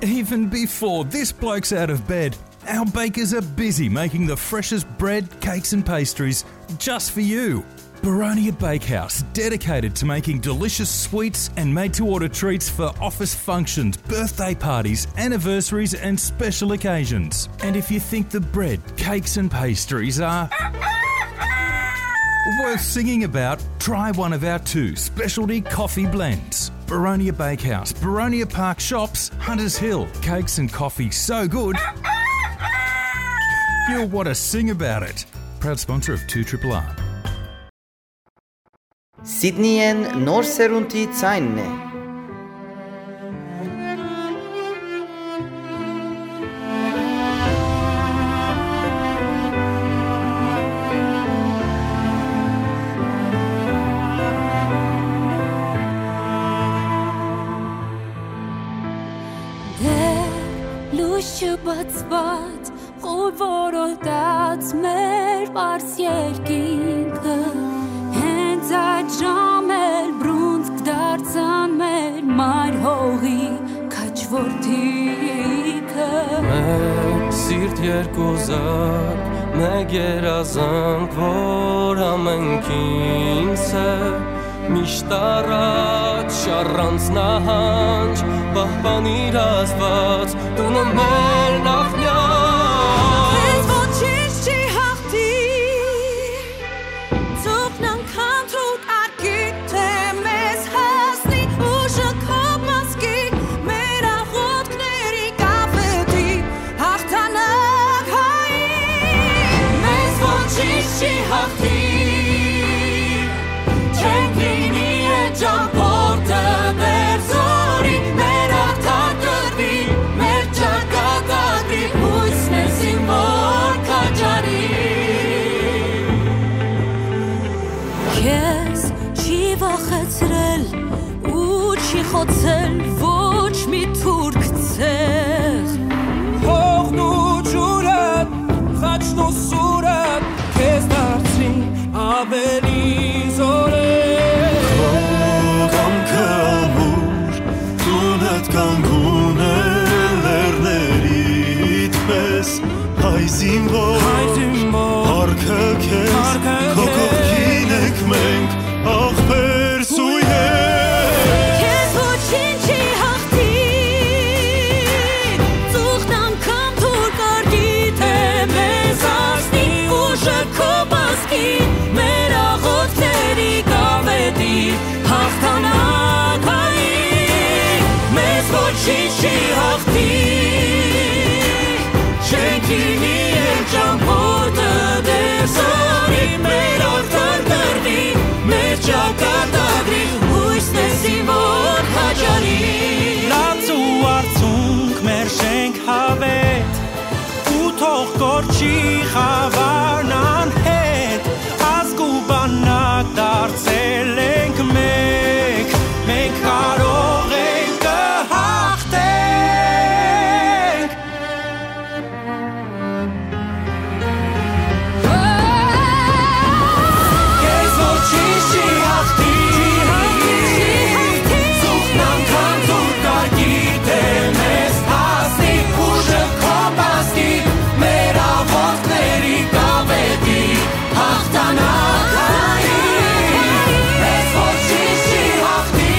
Even before this bloke's out of bed, our bakers are busy making the freshest bread, cakes, and pastries just for you. Baronia Bakehouse, dedicated to making delicious sweets and made to order treats for office functions, birthday parties, anniversaries, and special occasions. And if you think the bread, cakes, and pastries are worth singing about, try one of our two specialty coffee blends. Baronia Bakehouse, Baronia Park Shops, Hunters Hill. Cakes and coffee so good, you'll want to sing about it. Proud sponsor of two triple R. Սիդնիեն նոր սերունդի ձայնն է։ Դեռ լույս չբացված, խոր որոտած մեր պարզ երկինքը, հենց այդ ժամ էլ բռունցք դարձան մեր մայր հողի քաչորթիքը։ Մեկ սիրտ, երկու զակ, մեկ երազանք, որ ամենքին սեր, միշտ առաջ, առանց նահանջ, պահպանիր Աստված, տունը մեր նախնյալ։ Քեզ ոչինչ չի հաղթի, ծուխն անգամ դու կարգի, թե մեզ հասնի ուժը քո մազկի, մեր աղոթքների կապետի հաղթանակ հայի, մեզ ոչինչ չի հաղթի։ Չենք լինի այդ ճամփորդը մեր զորի, մեր արդար կռվի, մեր ճակատագրի, հույս մեր զինվոր քաջարի։ Քեզ չի վախեցրել ու չի խոցել ոչ մի թուրք ցեղ։ Հողն ու ջուրը, խաչն ու սուրը քեզ դարձրին ավելի զորեղ։ Քո կամքը ամուր, տունդ կանգուն է լեռներիդ պես, հայ զինվոր, հայ զինվոր, փառքը քեզ, փառքը քո քեզ, կողքին ենք մենք, ախպեր սույներ։ Քեզ ոչինչ չի հաղթի, ծուխն անգամ դուր կարգի, թե մեզ հասնի ուժը քո մազկի, մեր աղոթքների կապետի հաղթանակ հայի, մեզ ոչինչ չի հաղթի։ Մենք հավետ ու թող կորչի խավարն անհետ, ազգ ու բանակ դարձել ենք մեկ, մենք կարող ենք, կհաղթենք։ Քեզ ոչինչ չի հաղթի, զուգն անգամ զուր կար գիտեմ ես հասնի, ուժը քո պաստի, մեր աղոթքների կավետի հաղթանակային, մեզ ոչինչ չի հաղթի,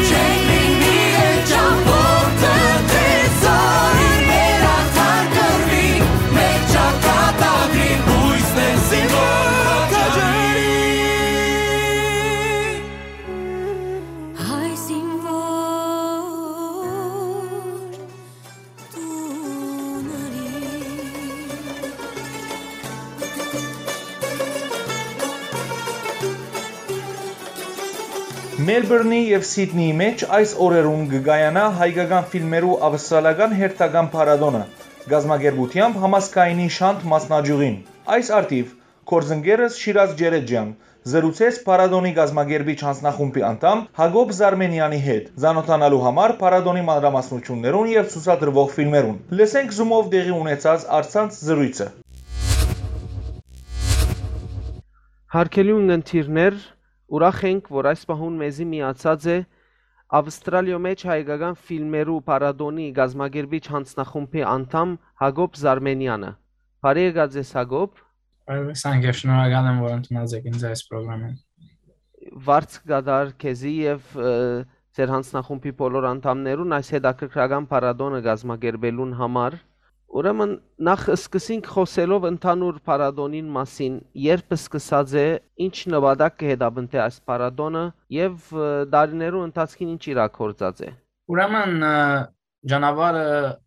չենք լինի էլ ճամբորդը, դե զորին մեր արդար կռվի, մեր ճակատագրի բույսն են զինվոր քաջարի։ Հայ զինվոր տունարի։ Մելբուրնի եւ Սիդնիի մէջ այս օրերուն կը կայանայ հայկական ֆիլմերու ավստրալական հերթական փառատոնը, կազմակերպութեամբ Համազգայինի Շանթ մասնաճիւղին։ Այս առթիւ գործընկերս Շիրազ Ջերեջեան զրուցեց փառատոնի կազմակերպիչ յանձնախումբի անդամ Յակոբ Զարմենեանի հետ, ծանօթանալու համար փառատոնի մանրամասնութիւններուն եւ ցուցադրուող ֆիլմերուն։ Լսենք Zoom-ով տեղի ունեցած առցանց զրոյցը։ Յարգելի ունգընտիրներ, ուրախ ենք, որ այս պահուն մեզի միացած է Ավստրալիոյ մէջ հայկական ֆիլմերու փառատոնի կազմակերպիչ յանձնախումբի անդամ Յակոբ Զարմենեանը։ Բարի եկած ես, Յակոբ։ Բարի եկաք, եւ շնորհակալ եմ, որ ընդունած եք ինձ այս պրոգրամին։ Վարձ կդար քեզի եւ, ը, ձեր յանձնախումբի բոլոր անդամներուն այս հետաքրքրական փառատոնը կազմակերպելուն համար։ Ուրեմն, նախ սկսենք խօսելով ընդհանուր փառատոնին մասին, երբ սկսած է, ինչ նպատակ կը հետապնդէ այս փառատոնը եւ, ը, տարիներու ընթացքին ինչ իրագործած է։ Ուրեմն, ը, ճանապարհը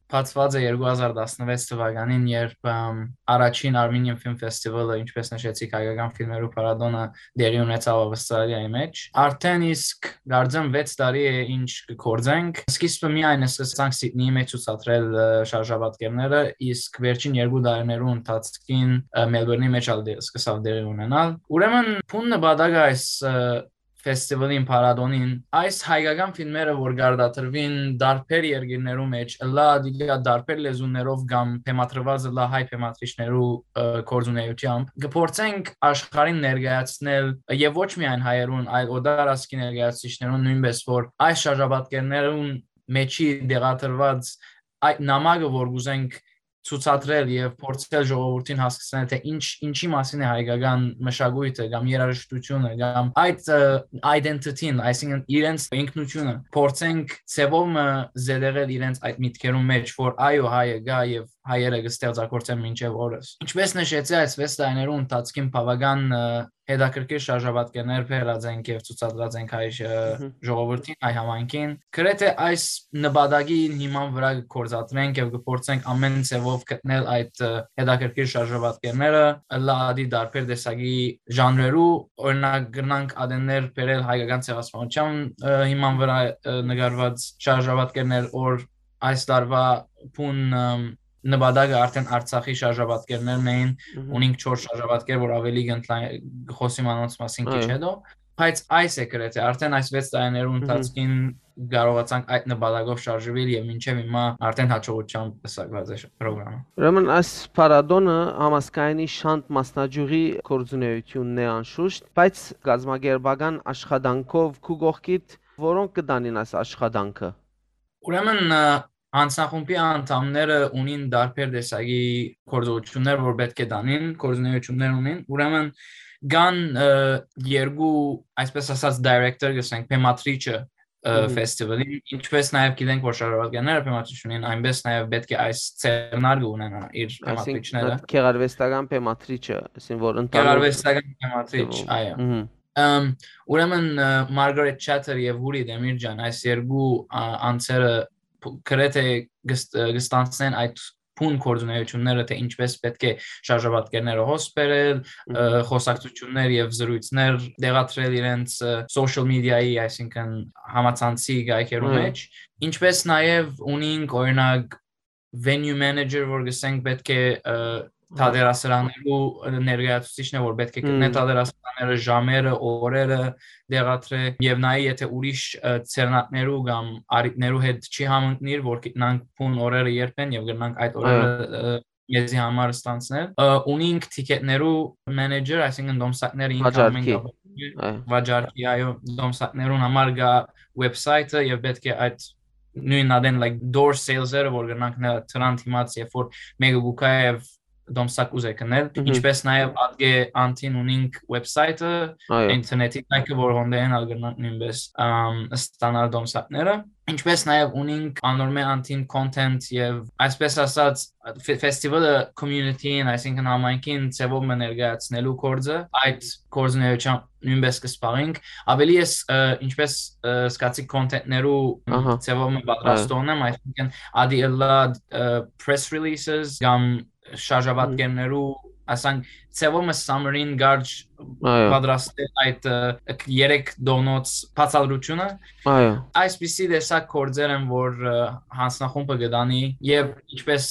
բացուած է երկու հազար տասնվեց թվականին, երբ, ըմ, առաջին Armenian Film Festival-ը, ինչպես նշեցիք, հայկական ֆիլմերու փառատոնը տեղի ունեցաւ Ավստրալիայի մէջ։ Արդեն իսկ, կարծեմ, վեց տարի է, ինչ կը գործենք։ Սկիզբը միայն սկսանք Սիդնիի մէջ ցուցադրել, ը, շարժապատկերները, իսկ վերջին երկու տարիներու ընթացքին, ը, Մելբուրնի մէջ ալ դե-, սկսաւ տեղի ունենալ։ Ուրեմն, բուն նպատակը այս, ը, ֆեստիվալին, փառատոնին, այս հայկական ֆիլմերը, որ կարտադրուին տարբեր երկիրներու մէջ, ըլլայ ատիկա տարբեր լեզուներով կամ բեմադրուած ըլլայ հայ բեմադրիչներու, ը, գործունեությամբ, կփորձենք աշխարհին ներկայացնել, ը, եւ ոչ միայն հայերուն, այլ օտար ազգի ներկայացուցիչներուն նոյնպես, որ այս շարժապատկերներուն մէջի տեղադրուած այդ նամակը, որ կ'ուզենք ցուցադրել եւ փորձել ժողովուրդին հասկցնել, թե ինչ, ինչի մասին է հայկական մշակոյթը կամ երաժշտությունը կամ այդ, ը, identity-ն, այսինքն իրենց ինքնությունը, փորձենք ձևով մը զետեղել իրենց այդ միտքերուն մէջ, որ այո, հայը կայ եւ հայերը կը ստեղծագործեն մինչեւ օրս։ Ինչպես նշեցի, այս վեց տարիներու ընթացքին բաւական, ը, հետաքրքիր շարժապատկերներ բերած ենք եւ ցուցադրած ենք հայ, ը, Մհմ։ ժողովուրդին, հայ համայնքին։ Գրեթե այս նպատակի հիման վրայ կը գործադրենք եւ կը փորձենք ամեն ձեւով գտնել այդ, ը, հետաքրքիր շարժապատկերները, ըլլայ ատի տարբեր տեսակի ժանրերու, օրինակ, կրնանք ատեններ բերել հայկական ցեղասպանության, ը, հիման վրայ, ը, նկարված շարժապատկերներ, որ այս տարուայ բուն, ըմ, նպատակը արդեն Արցախի շարժապատկերներն էին, Մհմ։ ունենք չորս շարժապատկեր, որ ավելի կընդլա-, կխոսիմ անոնց մասին քիչ Այո։ հետո, բայց այս է գրեթե, արդեն այս վեց տարիներու Մհմ։ ընթացքին կարողացանք այդ նպատակով շարժվել եւ մինչեւ հիմա արդեն հաջողությամբ պսակված է պրոգրամը։ Ուրեմն այս փառատոնը Համազգայինի Շանթ մասնաճյուղի գործունեությունն է անշուշտ, բայց կազմակերպական աշխատանքով քու կողքիդ որոնք կը տանին այս աշխատանքը։ Ուրեմն, ը, յանձնախումբի անդամները ունին տարբեր տեսակի գործողություններ, որ պէտք է տանին, գործունեություններ ունին։ Ուրեմն կան, ը, երկու, այսպես ասած, director, կ'ըսենք, բեմադրիչը, ը, Մհմ։ ֆեստիվալին, ինչպես նաև գիտենք, որ շարավազգյանները բեմադրիչ ունին, այնպես նաև պէտք է այս ձեռնարկը ունենա իր Այսինքն, բեմադրիչները։ այդ գեղարվեստական բեմադրիչը, այսինքն, որ ընդհանուր Գեղարվեստական բեմադրիչ, ձևով։ այո։ Մհմ։ Ըմ, ուրեմն, ը, Margaret Chater և Woody Demircan, այս երկու, ա, անձերը փ-, գրեթե կս-, ը, կստանցնեն այդ բուն գործունեությունները, թէ ինչպէս պէտք է շարժապատկերները հոս բերել, ը, խոսակցություններ եւ զրույցներ տեղադրել իրենց, ը, social media-ի, այսինքն համացանցի կայքերու Այո։ մեջ, ինչպէս նաեւ ունինք, օրինակ, venue manager, որ գսենք պէտք է, ը, թատերասրաններու ներկայացուցիչն է, որ պէտք է գտնէ Հմ։ թատերասրանները, ժամերը, օրերը տեղադրէ եւ նայ, եթե ուրիշ, ը, ձեռնարկներու կամ առիթներու հետ չի համընկնիր, որ գիտնանք բուն օրերը երբ են եւ կրնանք այդ օրերը, Այո։ ը, մեզի համար ստանցնել։ Ը, ունինք թիքեթներու մենեջեր, այսինքն դոմսակները ինքը ամեն Վաճառքի։ կապ Այո։ վաճառքի, այո, դոմսակներուն համար գա website-ը եւ պէտք է այդ նոյն ադեն, like, door sales-երը, որ կրնանք նրա դրան դիմաց, երբ որ մեկը գուկա եւ դոմսակ ուզե գնել, Մհմ։ ինչպես նաեւ ատկէ անտին ունինք website-ը, Այո։ internet-ի կայքը, որ հոնդեն ալ կրնանք նոյնպես, ըմ, ստանալ դոմսակները, ինչպես նաեւ ունինք անոր մէ անտին content եւ, այսպես ասած, ֆե-, festival-ը community-ին, այսինքն համայնքին ձևով մը ներկայացնելու գործը, այդ գործունեությամբ նոյնպես կը զբաղենք։ Ավելի ես, ը, ինչպես, ը, սկացի content-ներու Ահա։ ձևով մը պատրաստողն եմ, այսինքն ադի ըլլա, ը, press releases կամ շարժապատկերներու, ասանք, ձևով մը summary-ին գարջ Այո։ պատրաստել այդ, ը, երեք դոնոց բացատրությունը։ Այո։ Այսպիսի տեսակ գործեր են, որ, ը, հանձնախումբը կդանի, եւ ինչպես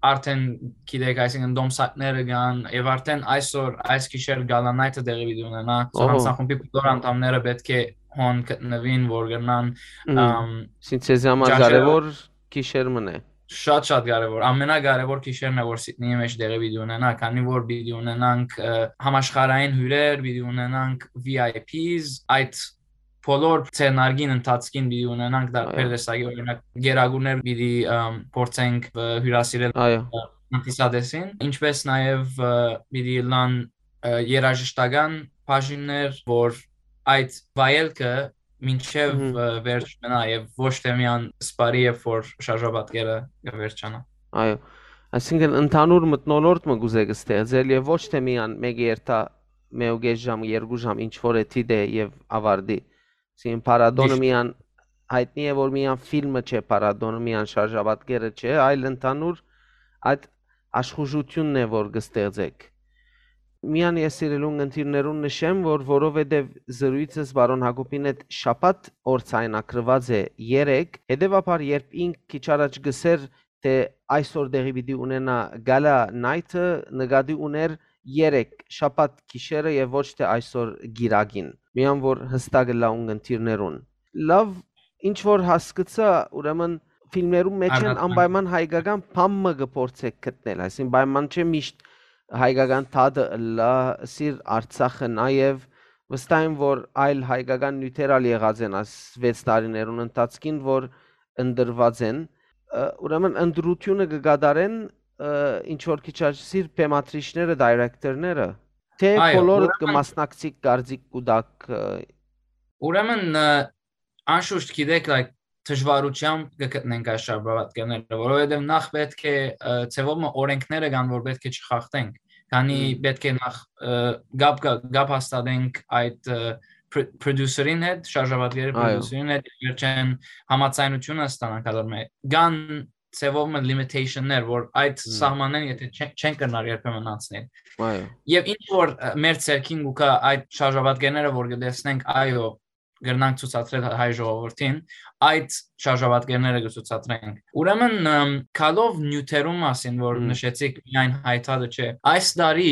արդեն գիտեք, այսինքն դոմսակները կան, եւ արդեն այսօր, այս գիշեր Gala Night-ը տեղի պիտի ունենա, so Ահա։ հանձնախումբի բոլոր անդամները պէտք է հոն գտնուին, որ կրնան, Մհմ։ ըմ, Սին ձեզի համար ճանչերը կարեւոր գիշեր մն է։ Շատ, շատ կարեւոր, ամենակարեւոր գիշերն է, որ Սիդնեի մեջ տեղի պիտի ունենա, քանի որ պիտի ունենանք, ը, համաշխարհային հիւրեր, պիտի ունենանք V I Ps, այդ բոլոր ձեռնարկին ընթացքին պիտի ունենանք դարբեր Այո։ տեսակի, օրինակ, գերագուրներ պիտի, ըմ, փորձենք, ը, հիւրասիրել, Այո։ ը, հանդիսատեսին, ինչպես նաեւ, ը, պիտի ըլլան, ը, երաժշտական բաժիններ, որ այդ վայելքը մինչեւ, Մհմ։ ը, վերջ մնայ եւ ոչ թե միան սպարի, երբ որ շարժապատկերը կը վերջանայ։ Այո, այսինքն ընդհանուր մթնոլորտ մը կուզէք ստեղծել եւ ոչ թե միան մեկը երթայ մէկ ու կէս ժամ, երկու ժամ, ինչ որ է դիտէ եւ ավարտի։ Այսինքն փառատոնը Միշտ։ միան հայտնի է, որ միան ֆիլմը չէ, փառատոնը միան շարժապատկերը չէ, այլ ընդհանուր այդ աշխուժությունն է, որ կստեղծեք։ Միան ես սիրելուն ընտիրներուն նշեմ, որ որովհետև զրույցս պարոն Յակոբին հետ շաբաթ օր ցայնակրված է երեկ, հետևաբար երբ ինք քիչ առաջ գսեր, թէ այսօր տեղի պիտի ունենայ Gala Night-ը, նկատի ունէր երեկ շաբաթ գիշերը եւ ոչ թէ այսօր գիրագին, միան որ հստակ ըլլայ ունգընտիրներուն։ Լավ, ինչ որ հասկցայ, ուրեմն ֆիլմերուն մեջ են Արգասան։ անպայման հայկական բան մը կը փորձեք գտնել, այսինքն պայման չէ միշտ հայկական թադը ըլլայ, սիր Արցախը նաեւ, վստահ եմ որ այլ հայկական նիւթեր ալ եղած են այս վեց տարիներուն ընթացքին, որ ընտրուած են, ը, ուրեմն ընտրութիւնը կը կատարեն, ը, ինչ որ քիչ աճ սիր բեմադրիչները, director-ները, թէ Այո, բոլորը կը ուրեմն մասնակցի կարծիք կու տաք, ը, Ուրեմն, ը, անշուշտ գիտեք, like, դժվարությամբ կը գտնենք այս շարժապատկերները, որովհետև նախ պէտք է, ը, ձևով մը օրենքները կան, որ պէտք է չխախտենք, քանի Մհմ։ պէտք է նախ, ը, գապ, գապ, գապ հաստատենք այդ, ը, պր-, producer-ին հետ, շարժապատկերի Այո։ producer-ին հետ, վերջեն համաձայնությունը ստանանք ադոր մէ-, կան ձևով մը limitation-ներ, որ այդ Մհմ։ սահմանեն, եթե չեն, չեն կրնար երբեմն անցնել։ Այո։ Եվ ինչ որ, ը, մեր ձեռքին կուքա այդ շարժապատկերները, որ կտեսնենք, այո, կրնանք ցուցադրել հայ ժողովրդին, այդ շարժապատկերները կցուցադրենք։ Ուրեմն, ըմ, գալով նիւթերու մասին, որ Մհմ։ նշեցիք, միայն հայ թադը չէ, այս տարի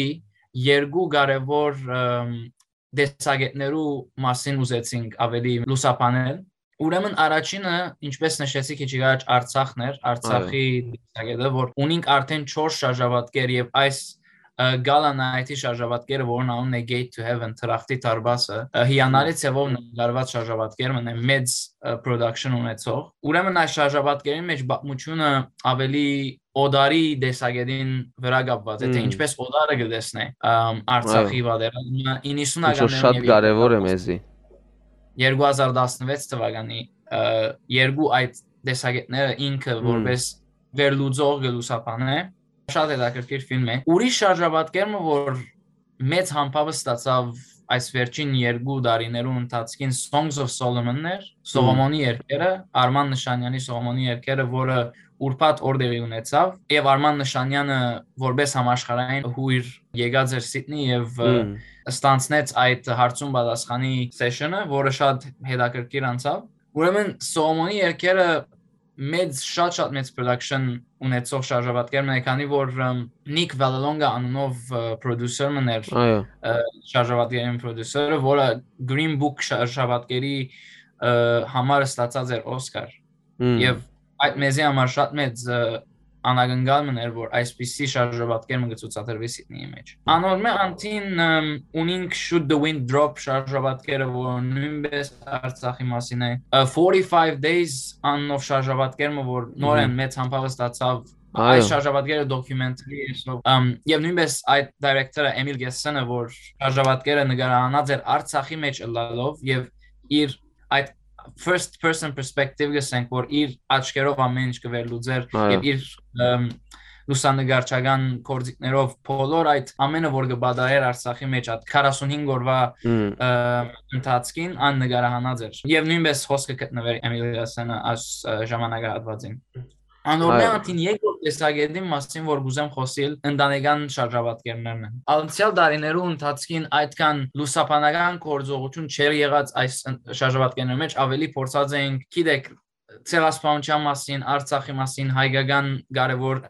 երկու կարևոր, ըմ, տեսակետներու մասին ուզեցինք ավելի լուսաբանել։ Ուրեմն առաջինը, ինչպես նշեցի քիչ առաջ, Արցախն էր, Արցախի Այո։ տեսակետը, որ ունինք արդեն չորս շարժապատկեր եւ այս, ը, Gala Night-ի շարժապատկերը, որն անունն է Gate to Heaven, Թրախտի դարպասը, ը, հիանալի Մհմ։ ձևով նկարված շարժապատկեր մնա մեծ, ը, production ունեցող։ Ուրեմն այս շարժապատկերին մեջ պատմությունը ավելի օտարի տեսակետին վրա կապված է, թէ Մհմ։ ինչպես օտարը կը տեսնէ, ըմ, Արցախի Այո։ պատերազմը, Ինչ որ իննսունականներուն շատ և կարևոր է երկու հազար մեզի։ երկու հազար տասնվեց թվականի, ը, երկու այդ տեսակետները ինքը Մհմ։ որպես վերլուծող կը լուսաբանէ։ Շատ հետաքրքիր ֆիլմ է։ Ուրիշ շարժապատկեր մը, որ մեծ համբավը ստացավ այս վերջին երկու տարիներու ընթացքին Songs of Solomon-ներ, Սողոմոնի երկերը, Արման Նշանյանի Սողոմոնի երկերը, որը ուրբաթ օրտեղի ունեցաւ, եւ Արման Նշանյանը որպես համաշխարհային հուր եկած էր Սիդնի եւ, ը, Մմ։ ստանցնեց այդ հարցուն պատասխանի session-ը, որը շատ հետաքրքիր անցաւ։ Ուրեմն Սողոմոնի երկերը մեծ, շատ, շատ մեծ production ունեցող շարժապատկեր մը է, քանի որ, ըմ, Նիկ Վալալոնգա անունով, ը, producer մը ներ, Այո։ ը, շարժապատկերին producer-ը, որը Green Book շարժապատկերի, ը, համար ստացած էր Օսկար։ Մմ։ Եւ այդ մեզի համար շատ մեծ, ը, անակնկալ մը ներ, որ այսպիսի շարժապատկեր մը կը ցուցադրուի Սիդնիի մեջ։ Անոր մէ անդին, ըմ, ունինք Should the Wind Drop շարժապատկերը, որ նոյնպէս Արցախի մասին է։ Ը, Forty-Five Days անունով շարժապատկեր մը, որ նորեն Մհմ։ մեծ համբաւ ստացաւ։ Այո։ Այս շարժապատկերը documentary է, so, ըմ, եւ նոյնպէս այդ director-ը Էմիլ Գեսսենը, որ շարժապատկերը նկարահանած էր Արցախի մեջ ըլլալով եւ իր այդ first person perspective, գսենք, որ իր աչքերով ամեն ինչ կը վերլուծեր Այո։ եւ իր, ըմ, լուսանկարչական գործիքներով բոլոր այդ ամենը, որ կը պատահեր Արցախի մեջ այդ քառասունհինգ օրվա, Մմ։ ը, ընթացքին, ան նկարահանած էր։ Եւ նոյնպէս հոսքը գտնվեր Էմիլ Գեսսենը այս, ը, ժամանակահատվածին։ Անոր Այո։ մէ անդին երկրորդ տեսակետին մասին, որ կուզեմ խօսիլ, ընտանեկան շարժապատկերներն են։ Անցեալ տարիներու ընթացքին այդքան լուսաբանական գործողություն չէր եղած այս ըն-, շարժապատկերներու մեջ, ավելի փորձած էինք, գիտեք, ցեղասպանության մասին, Արցախի մասին, հայկական կարևոր,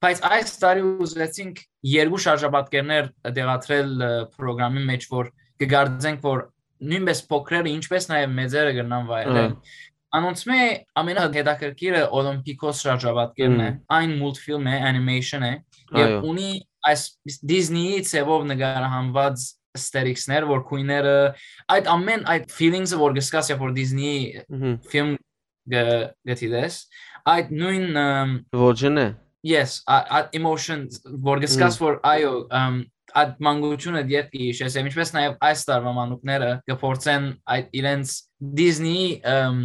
բայց այս տարի ուզեցինք երկու շարժապատկերներ դեղատրել, ը, պրոգրամի մեջ, որ կգարձենք, որ նոյնպէս փոքրերը, ինչպես նաեւ մեծերը կրնան վայելել։ Ահա։ Անոնցմէ ամենահետաքրքիրը Օլիմպիկոս շարժապատկերն է, Մմ։ այն մուլտֆիլմ է, animation է, եւ Այո։ ունի այս Disney-ի ձևով նկարահանված aesthetics-ներ, որ քույները, այդ ամեն, այդ feelings-ը, որ կսկաս, երբ որ Disney-ի Մհմ։ ֆիլմ գ-, գտիտես, այդ նոյն, ըմ, Ոճն է։ Yes, ա-, այդ emotions, որ գսկաս, Մմ։ որ այո, ըմ, այդ մանկությունը դեռ կհիշես, եւ ինչպես նաեւ այս տարվա մանուկները կփորձեն այդ իրենց Disney-ի, ըմ,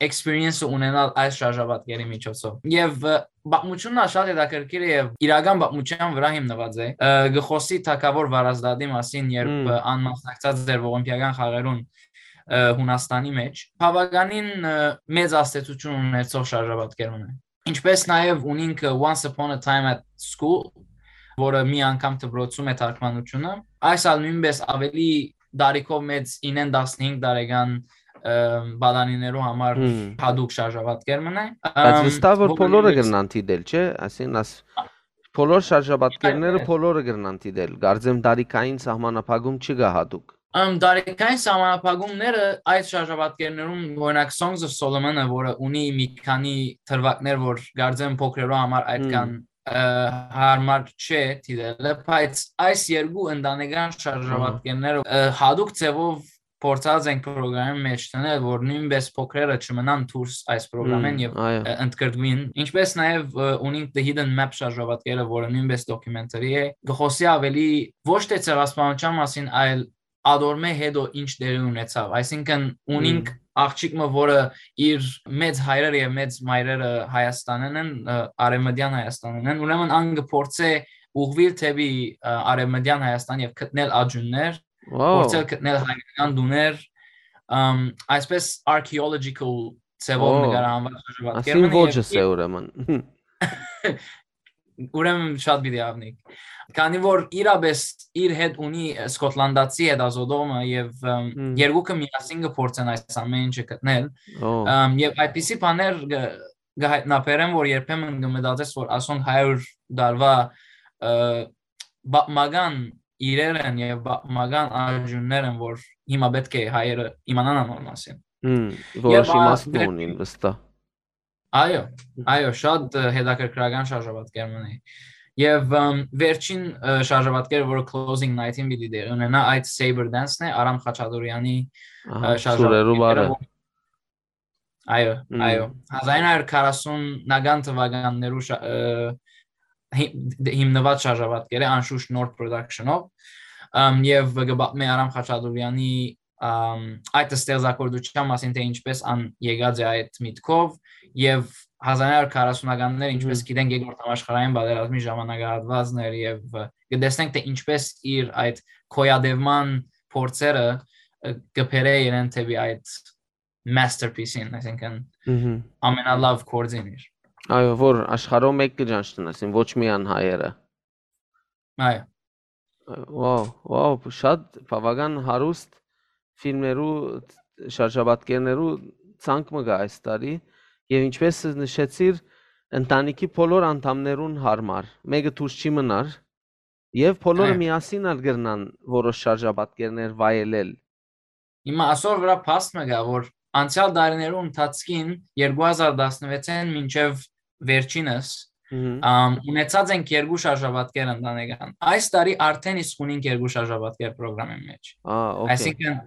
experience-ը ունենալ այս շարժապատկերի միջոցով։ Եւ, ը, պատմությունն ալ շատ հետաքրքիր է եւ իրական պատմության վրա հիմնված է։ Ը, գխոսի թագաւոր Վարազդատի մասին, երբ, Մմ։ ը, ան մասնակցած էր ողիմպիական խաղերուն, ը, Հունաստանի մեջ, բաւականին, ը, մեծ ազդեցություն ունեցող շարժապատկեր մը։ Ինչպես նաեւ ունինք, ը, Once Upon a Time at School, որը մի անգամ դպրոցում է թարգմանությունը, այս ալ նոյնպէս ավելի տարիքով մեծ ինեն տասնհինգ տարեկան, ը, պատանիներու համար Հմ։ հատուկ շարժապատկեր մը է, Բայց ըմ, վստահ որ որը բոլորը նոյնպէս կրնան դիտել, չէ՞։ Այսինքն աս-, Այո, բոլոր շարժապատկերները այո։ բոլորը կրնան դիտել։ Կարծեմ տարիքային սահմանափակում չկա հատուկ։ Ըմ, տարիքային սահմանափակումները այդ շարժապատկերներուն, օրինակ, Songs of Solomon-ը, որը ունի մի քանի դրուագներ, որ կարծեմ փոքրերու համար այդքան, Հմ։ ը, հարմար չէ դիտելը, բայց այս երկու ընտանեկան Ահա։ շարժապատկերները, ը, հատուկ ձևով փորձած ենք պրոգրամի մեջ դնել, որ նոյնպէս փոքրերը չմնան դուրս այս պրոգրամէն Հմ, եւ, այո։ ը, ընդգրկուին, ինչպես նաեւ, ը, ունինք The Hidden Map շարժապատկերը, որը նոյնպէս documentary է, գխոսի ավելի ոչ թե ցեղասպանության մասին, այլ ադորմէ հետո ինչ տեղի ունեցավ։ Այսինքն ունինք Հմ։ աղջիկ մը, որը իր մեծ հայրերը եւ մեծ մայրերը Հայաստանեն են, ը, արևմտյան Հայաստանեն են, ուրեմն ան կփորձէ ուղղուիլ դէպի, ը, արևմտյան Հայաստան եւ գտնել աջուններ, Wow։ փորձել գտնել հայկական տուներ, ըմ, այսպես archaeological ձևով Wow։ նկարահանված շարժապատկեր Ասին մը եւ ոճս է իր ուրեմն։ Ուրեմն շատ պիտի ավնիկ։ Քանի որ իրապես իր հետ ունի Սկոտլանդացի հետազոտողը եւ, ըմ, Հմ։ երկուքը միասին կփորձեն այս ամեն ինչը գտնել, Ո։ ըմ, եւ այդպիսի բաներ գ-, գ-, հայտնաբերեմ, որ երբեմն կմտածես, որ ասոնք հարյուր տարվա, ը, պատմական իրեր են եւ պատմական աջուններ են, որ հիմա պէտք է հայերը իմանան անոր մասին։ Հմ, Եւ որոշ ա-, իմաստ դրե- ունին վստահ։ Այո, այո, շատ, ը, հետաքրքրական շարժապատկեր մնա։ Եվ, ըմ, վերջին, ը, շարժապատկերը, որը Closing Night-ին պիտի տեղի ունենա, այդ Saber Dance-ն է, Արամ Խաչատուրեանի, Ահա, ը, շարժապատկերը, սուրերու բարը։ որ-, այո, Մմ։ այո, հազար ինը հարյուր քառասունական թվականներու շա-, ը, հի-, դե-, հիմնված շարժապատկեր է, անշուշտ նոր production-ով, ըմ, եւ կը պատմէ Արամ Խաչատուրեանի, ըմ, այդ ստեղծագործության մասին, թե ինչպես ան եկած է այդ միտքով, եւ հազար ինը հարյուր քառասունականները, ինչպես Մհմ։ գիտենք, երկրորդ համաշխարհային պատերազմի ժամանակահատվածն էր, եւ, ը, կտեսնենք, թե ինչպես իր այդ գոյատևման փորձերը, ը, կը բերէ իրեն դէպի այդ masterpiece-ին, այսինքն, Մհմ։ ամենալավ գործին իր։ Այո, որ աշխարհով մէկ կը ճանչնան, այսինքն, ոչ միայն հայերը։ Այո։ Վաու, վաու, շատ բաւական հարուստ ֆիլմերու, շարժապատկերներու ցանկ մը կայ այս տարի, եւ ինչպես նշեցիր, ընտանիքի բոլոր անդամներուն հարմար, մէկը դուրս չի մնար, եւ բոլորը Այո։ միասին ալ կրնան որոշ շարժապատկերներ վայելել։ Հիմա ասոր վրայ փաստ մը կայ, որ անցեալ տարիներու ընթացքին, երկու հազար տասնվեցէն մինչեւ վերջինս, Մհմ։ ամ, ունեցած ենք երկու շարժապատկեր ընտանեկան։ Այս տարի արդեն իսկ ունենք երկու շարժապատկեր պրոգրամին մեջ։ Ա, օքեյ։ Այսինքն,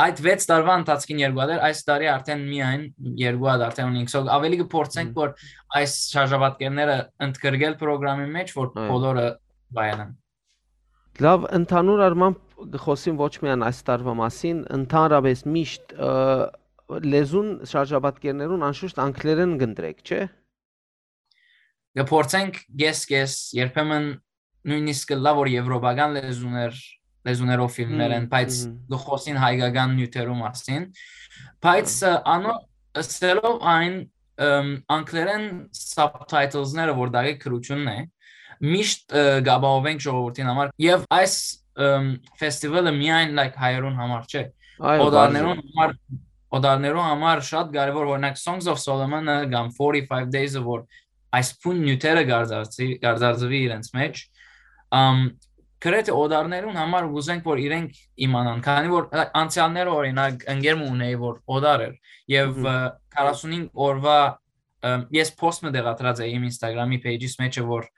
այդ վեց տարվա ընթացքին երկու հատ էր, այս տարի արդեն միայն երկու հատ արդեն ունենք։ So, ավելի կը փորձենք, Մհմ։ որ այս շարժապատկերները ընդգրկել պրոգրամի մեջ, որ Այո։ բոլորը վայելեն։ Լավ, ընդհանուր առմամբ կը խօսին ոչ միայն այս տարվա մասին, ընդհանրապես միշտ, ը, լեզուն շարժապատկերներուն անշուշտ անգլերեն կընտրեք, չէ՞։ Կը փորձենք կես-կես, երբեմն նոյնիսկ կը լա, որ եվրոպական լեզուներ, լեզուներով ֆիլմներ են, Մհմ, բայց մհմ։ կը խօսին հայկական նիւթերու մասին։ Բայց, Հա։ ը, անոր ըսելով այն, ըմ, անգլերեն subtitles-ները, որ դակի գրութիւնն է, միշտ, ը, կ'ապահովենք ժողովուրդին համար, եւ այս, ըմ, ֆեստիվալը միայն, like, հայերուն համար չէ։ Այո, Օտարներուն պարզ է։ համար, օտարներուն համար շատ կարեւոր, օրինակ, Songs of Solomon-ը կամ Forty-Five Days-ը, որ այս բուն նիւթերը կարձարծի-, կարձարծուի իրենց մեջ, ըմ, գրեթէ օտարներուն համար կ'ուզենք, որ իրենք իմանան, քանի որ, like, անցեալները, օրինակ, ընկեր մը ունէի, որ օտար էր, եւ, Մհմ։ ը, քառասունհինգ օրվա, ը, ես post մը տեղադրած էի իմ Instagram-ի page-իս մեջ, որ,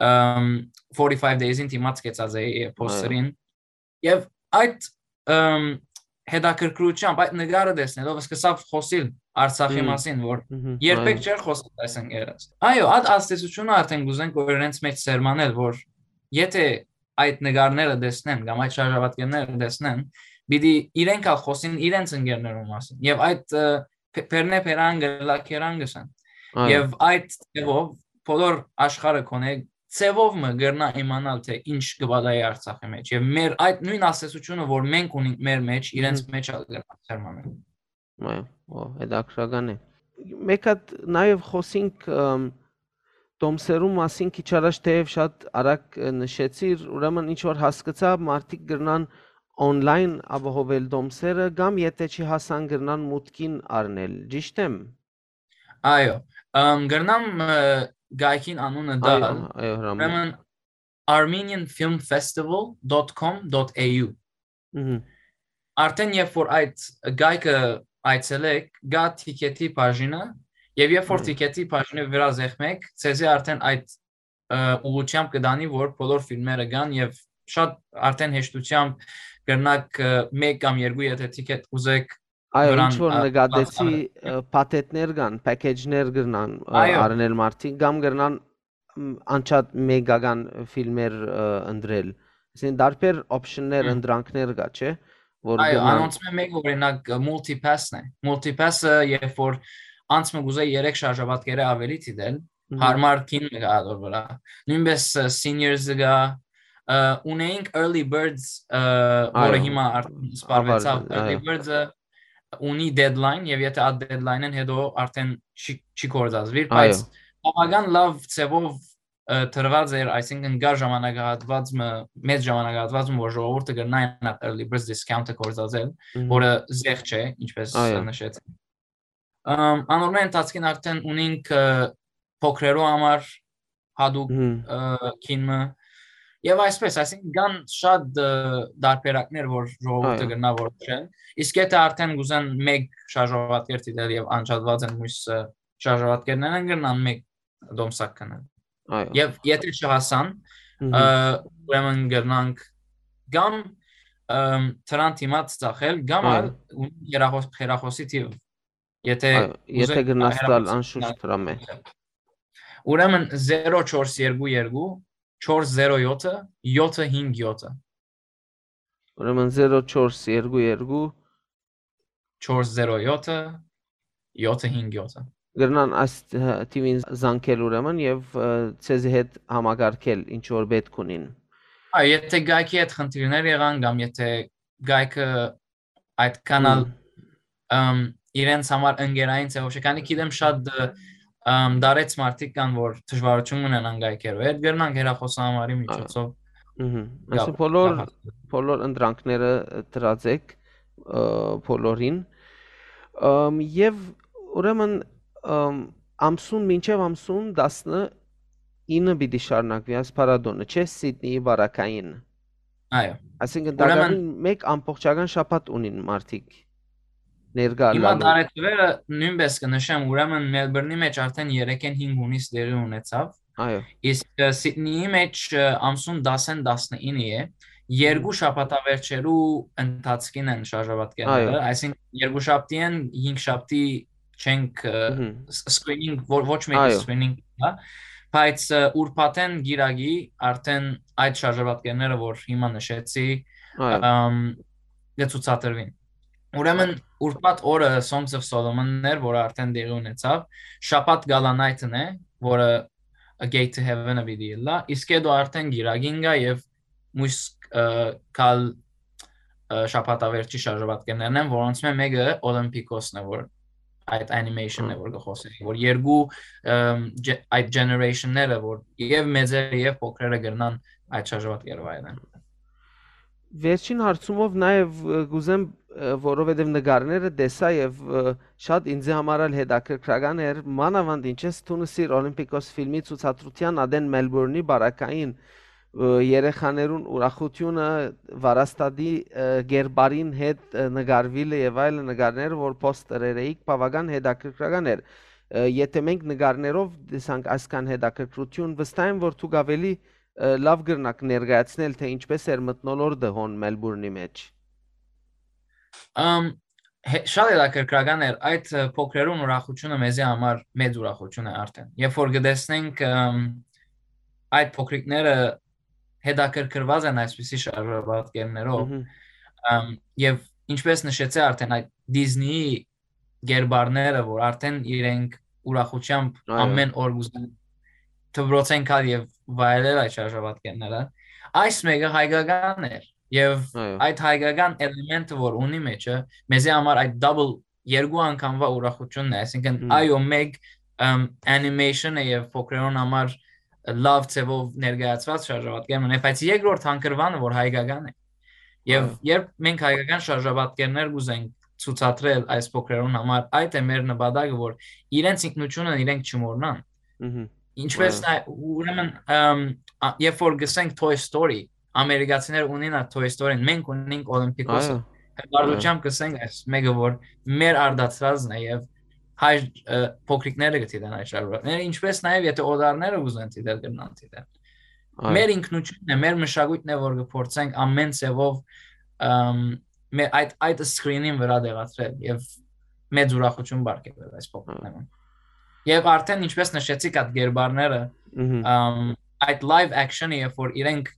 ըմ, Forty-Five Days-ին դիմաց կեցած էի, ը, Այո։ post-երին։ Եւ այդ, ըմ, հետաքրքրությամբ, այդ նկարը տեսնելով, սկսաւ խօսիլ Արցախի Մհմ։ մասին, որ Մհմ, երբեք այո։ չէր խօսել այս ընկերս։ Այո, այդ ազդեցությունը արդեն կ'ուզենք, որ իրենց մեջ սերմանել, որ եթե այդ նկարները տեսնեն կամ այդ շարժապատկերները տեսնեն, պիտի իրենք ալ խօսին իրենց ընկերներուն մասին։ Եւ այդ, ը, Փ-, Փերնե Փերան գլա Քերան գսեն։ Այո։ Եւ այդ ձևով բոլոր աշխարհը կոնե ձևով մը կրնայ իմանալ, թե ինչ կը պատահի Արցախի մեջ։ Եւ մեր այդ նոյն ազդեցությունը, որ մենք ունենք մեր մեջ, իրենց Մհմ։ մեջ ալ կրնայ սերմանել։ Այո, ո, հետաքրքրական է։ Մեկ հատ նաեւ խօսինք, ըմ, տոմսերու մասին քիչ առաջ, թեեւ շատ արագ, ը, նշեցիր, ուրեմն ինչ որ հասկցայ, մարդիկ կրնան online ապահովել տոմսերը կամ եթե չի հասան, կրնան մուտքին առնել։ Ճիշդ եմ։ Այո, ըմ, կրնամ, ը, գայքին անունը Այո, տալ։ այո, Հրամի։ Ուրեմն, armenian film festival dot com dot a u։ Մհմ։ Արդեն երբ որ այդ գայքը այցելեք, գա թիքեթի բաժինը, եւ երբ որ Այո։ թիքեթի բաժինի վրայ զեղմեք, ձեզի արդեն այդ, ը, ուղղությամբ կը տանի, որ բոլոր ֆիլմերը կան, եւ շատ արդեն հեշտությամբ կրնաք, ը, մեկ կամ երկու, եթե թիքեթ ուզեք, Այո, վրան, ինչ որ ը, նկատեցի, բաց-, ը, փաթեթներ կան, package-ներ կրնան, ը, Այո։ առնել մարդիկ, կամ կրնան, մ, անջատ մեկական ֆիլմեր, ը, ընտրել։ Այսինքն տարբեր option-ներ, Հմ։ ընտրանքներ կա, չէ՞, որ Այո, կրնան անոնցմէ մեկը, օրինակ, ը, Multipass-ն է։ Multipass-ը, երբ որ անց մը կուզե երեք շարժապատկերը ավելի դիտել, Մհմ։ հարմար կին մը կա ատոր վրայ։ Նոյնպես, ը, Seniors-ը կա, ը, ունեինք Early Birds, ը, որը Այո, հիմա արդեն սպառվեցաւ։ Early Birds-ը ունի deadline, եւ եթե այդ deadline-ին հետո արդեն չի, չի գործածվիր, Այո։ բայց բավական լավ ձևով, ը, տրված էր, այսինքն կար ժամանակահատված մը, մեծ ժամանակահատված մը, որ ժողովուրդը կրնային այդ Early Birds discount-ը գործածել, Մհմ։ որը զեղ չէ, ինչպես Այո։ նշեցի։ Ըմ, անոր մէ ընթացքին արդեն ունինք, ը, փոքրերու համար հատուկ, Մհմ։ ը, կին մը։ Եվ այսպես, այսինքն կան շատ, ը, տարբերակներ, որ ժողովուրդը Այո։ կրնա որոշել։ Իսկ եթե արդեն կուզեն մեկ շարժապատկեր դիտել եւ անջատված են մյուս, ը, շարժապատկերներն, կրնան մեկ տոմսակ գնել։ Այո։ Եվ եթե չհասան, Մհմ։ ը, ուրեմն կրնանք կամ, ըմ, դրան դիմաց ծախել, կամ Այո։ ալ ունի հեռախոս-, հեռախոսի թիվ, եթե Այո, ուզեք, եթե գնաս տալ հեռախոս-, անշուշտ դրամ է։ Ուրեմն զերո չորս երկու երկու, չորս զերո յոթը, յոթը հինգ յոթը։ Ուրեմն զերո չորս երկու երկու, չորս զերո յոթը, յոթը հինգ յոթը։ Կրնան այս, ը, թիվին զանգել ուրեմն եւ, ը, ձեզի հետ համակարգել ինչ որ պէտք ունին։ Այո, եթե գայքի հետ խնդիրներ եղան կամ եթե կայքը այդքան ալ, ըմ, իրենց համար ընկերային ձեւով չէ, քանի գիտեմ շատ, ը, ըմ, դարեց մարդիկ կան, որ դժվարութիւն ունենան կայքերու հետ, կրնանք հեռախոսահամարի միջոցով Ահա։ Ըհը։ Այսինքն գալ, բոլոր, գալ։ Բոլոր ընտրանքները դրած եք, ը, բոլորին։ Ըմ, եւ ուրեմն, ըմ, ամսուն, մինչեւ ամսուն տասնինը պիտի շարունակուի այս փառատոնը, չէ՞, Սիդնիի բարակային։ Այո։ Այսինքն Ուրեմն տակավին մեկ ամբողջական շաբաթ ունին մարդիկ ներկայ Հիմա ըլլալու։ Տարեթվերը նոյնպէս կը նշեմ, ուրեմն Մելբուրնի մէջ արդեն երեքէն հինգ հունիս տեղի ունեցաւ։ Այո։ Իսկ, ը, Սիդնիի մէջ, ը, ամսուն տասին տասնինը է, երկու Մհմ։ շաբաթավերջերու ընթացքին են շարժապատկերները, Այո։ այսինքն երկու շաբթի են, հինգ շաբթի չենք, ը, Մհմ։ ս-, screening, ո-, ոչ մեկի Այո։ screening, հա, բայց, ը, ուրբաթէն գիրագի արդեն այդ շարժապատկերները, որ հիմա նշեցի, Այո։ ըմ, կը ցուցադրուին։ Ուրեմն Այո։ ուրբաթ օրը Songs of Solomon-ն էր, որը արդեն տեղի ունեցավ, շաբաթ Gala Night-ն է, որը A Gate to Heaven-ը պիտի ըլլայ, իսկ հետո արդեն գիրագին գայ եւ մոյս, ը, կալ, ը, շաբաթավերջի շարժապատկերներն են, որոնցմէ մէկը Olympiakos-ն է, որ այդ animation-ն է, Հմ։ որ կը խօսի, որ երկու, ըմ, ջե-, այդ generation-ները, որ եւ մեծերը, եւ փոքրերը կրնան այդ շարժապատկերը վայելեն։ Վերջին հարցումով նաեւ, ը, կ'ուզեմ, ը, որովհետեւ նկարները տեսայ եւ, ը, շատ ինձի համար ալ հետաքրքրական էր, մանաւանդ ինչ ես դու նսիր Olympiakos ֆիլմի ցուցադրութեան ատեն Մելբուրնի բարակային, ը, երեխաներուն ուրախութիւնը, վարաստատի, ը, կերպարին հետ, ը, նկարուիլը եւ այլը նկարները, որ poster-եր էիք, բաւական հետաքրքրական էր։ Ը, եթէ մենք նկարներով տեսանք այսքան հետաքրքրութիւն, վստահ եմ, որ դուք աւելի, ը, լաւ կրնաք ներկայացնել, թէ ինչպէս էր մթնոլորտը հոն Մելբուրնի մէջ։ Ամ, հե-, շատ հետաքրքրական էր, այդ, ը, փոքրերուն ուրախութիւնը մեզի համար մեծ ուրախութիւն է արդեն։ Երբ որ կտեսնենք, ըմ, այդ փոքրիկները հետաքրքրված են այսպիսի շարժապատկերներով, Մհմ։ ըմ, եւ ինչպես նշեցի արդեն, այդ Disney-ի կերպարները, որ արդեն իրենք ուրախութեամբ Այո։ ամեն օր կ'ուզեն դպրոցէն գալ եւ վայելել այդ շարժապատկերները, այս մէկը հայկական էր, եւ Այո։ այդ հայկական էլեմենտը, որ ունի մեջը, մեզի համար այդ double, երկու անգամվա ուրախութիւնն է, այսինքն Հմ։ այո, մեկ, ըմ, animation-ը եւ փոքրերուն համար լաւ ձեւով ներկայացված շարժապատկեր մնա, բայց երկրորդ հանգրուանը, որ հայկական է։ Եւ Այո։ երբ մենք հայկական շարժապատկերներ կ'ուզենք ցուցադրել այս փոքրերուն համար, այդ է մեր նպատակը, որ իրենց ինքնութիւնը իրենք չմոռնան։ Մհմ։ Ինչպես Այո։ նայ-, ուրեմն, ըմ, ա, երբ որ գսենք Toy Story, ամերիկացիները ունին այդ Toy Story-ն, մենք ունենք Olympiakos-ը։ Այո։ Հպարտությամբ Այո։ կսենք այս մէկը, որ մեր արտադրածն է եւ հայ, ը, փոքրիկները կը դիտեն այդ շարունակները, ինչպես նաեւ եթե օտարները ուզեն դիտել, կրնան դիտել։ Այո։ Մեր ինքնությունն է, մեր մշակույթն է, որ կփորձենք ամեն ձևով, ըմ, մեր այդ, այդ screen-ին վրա տեղադրել եւ մեծ ուրախութիւն պարգեւել այս փոքրիկներուն։ Այո։ Եվ արդեն, ինչպես նշեցիք, այդ գերբարները, Մհմ։ ըմ, այդ live action-ը, երբ որ իրենք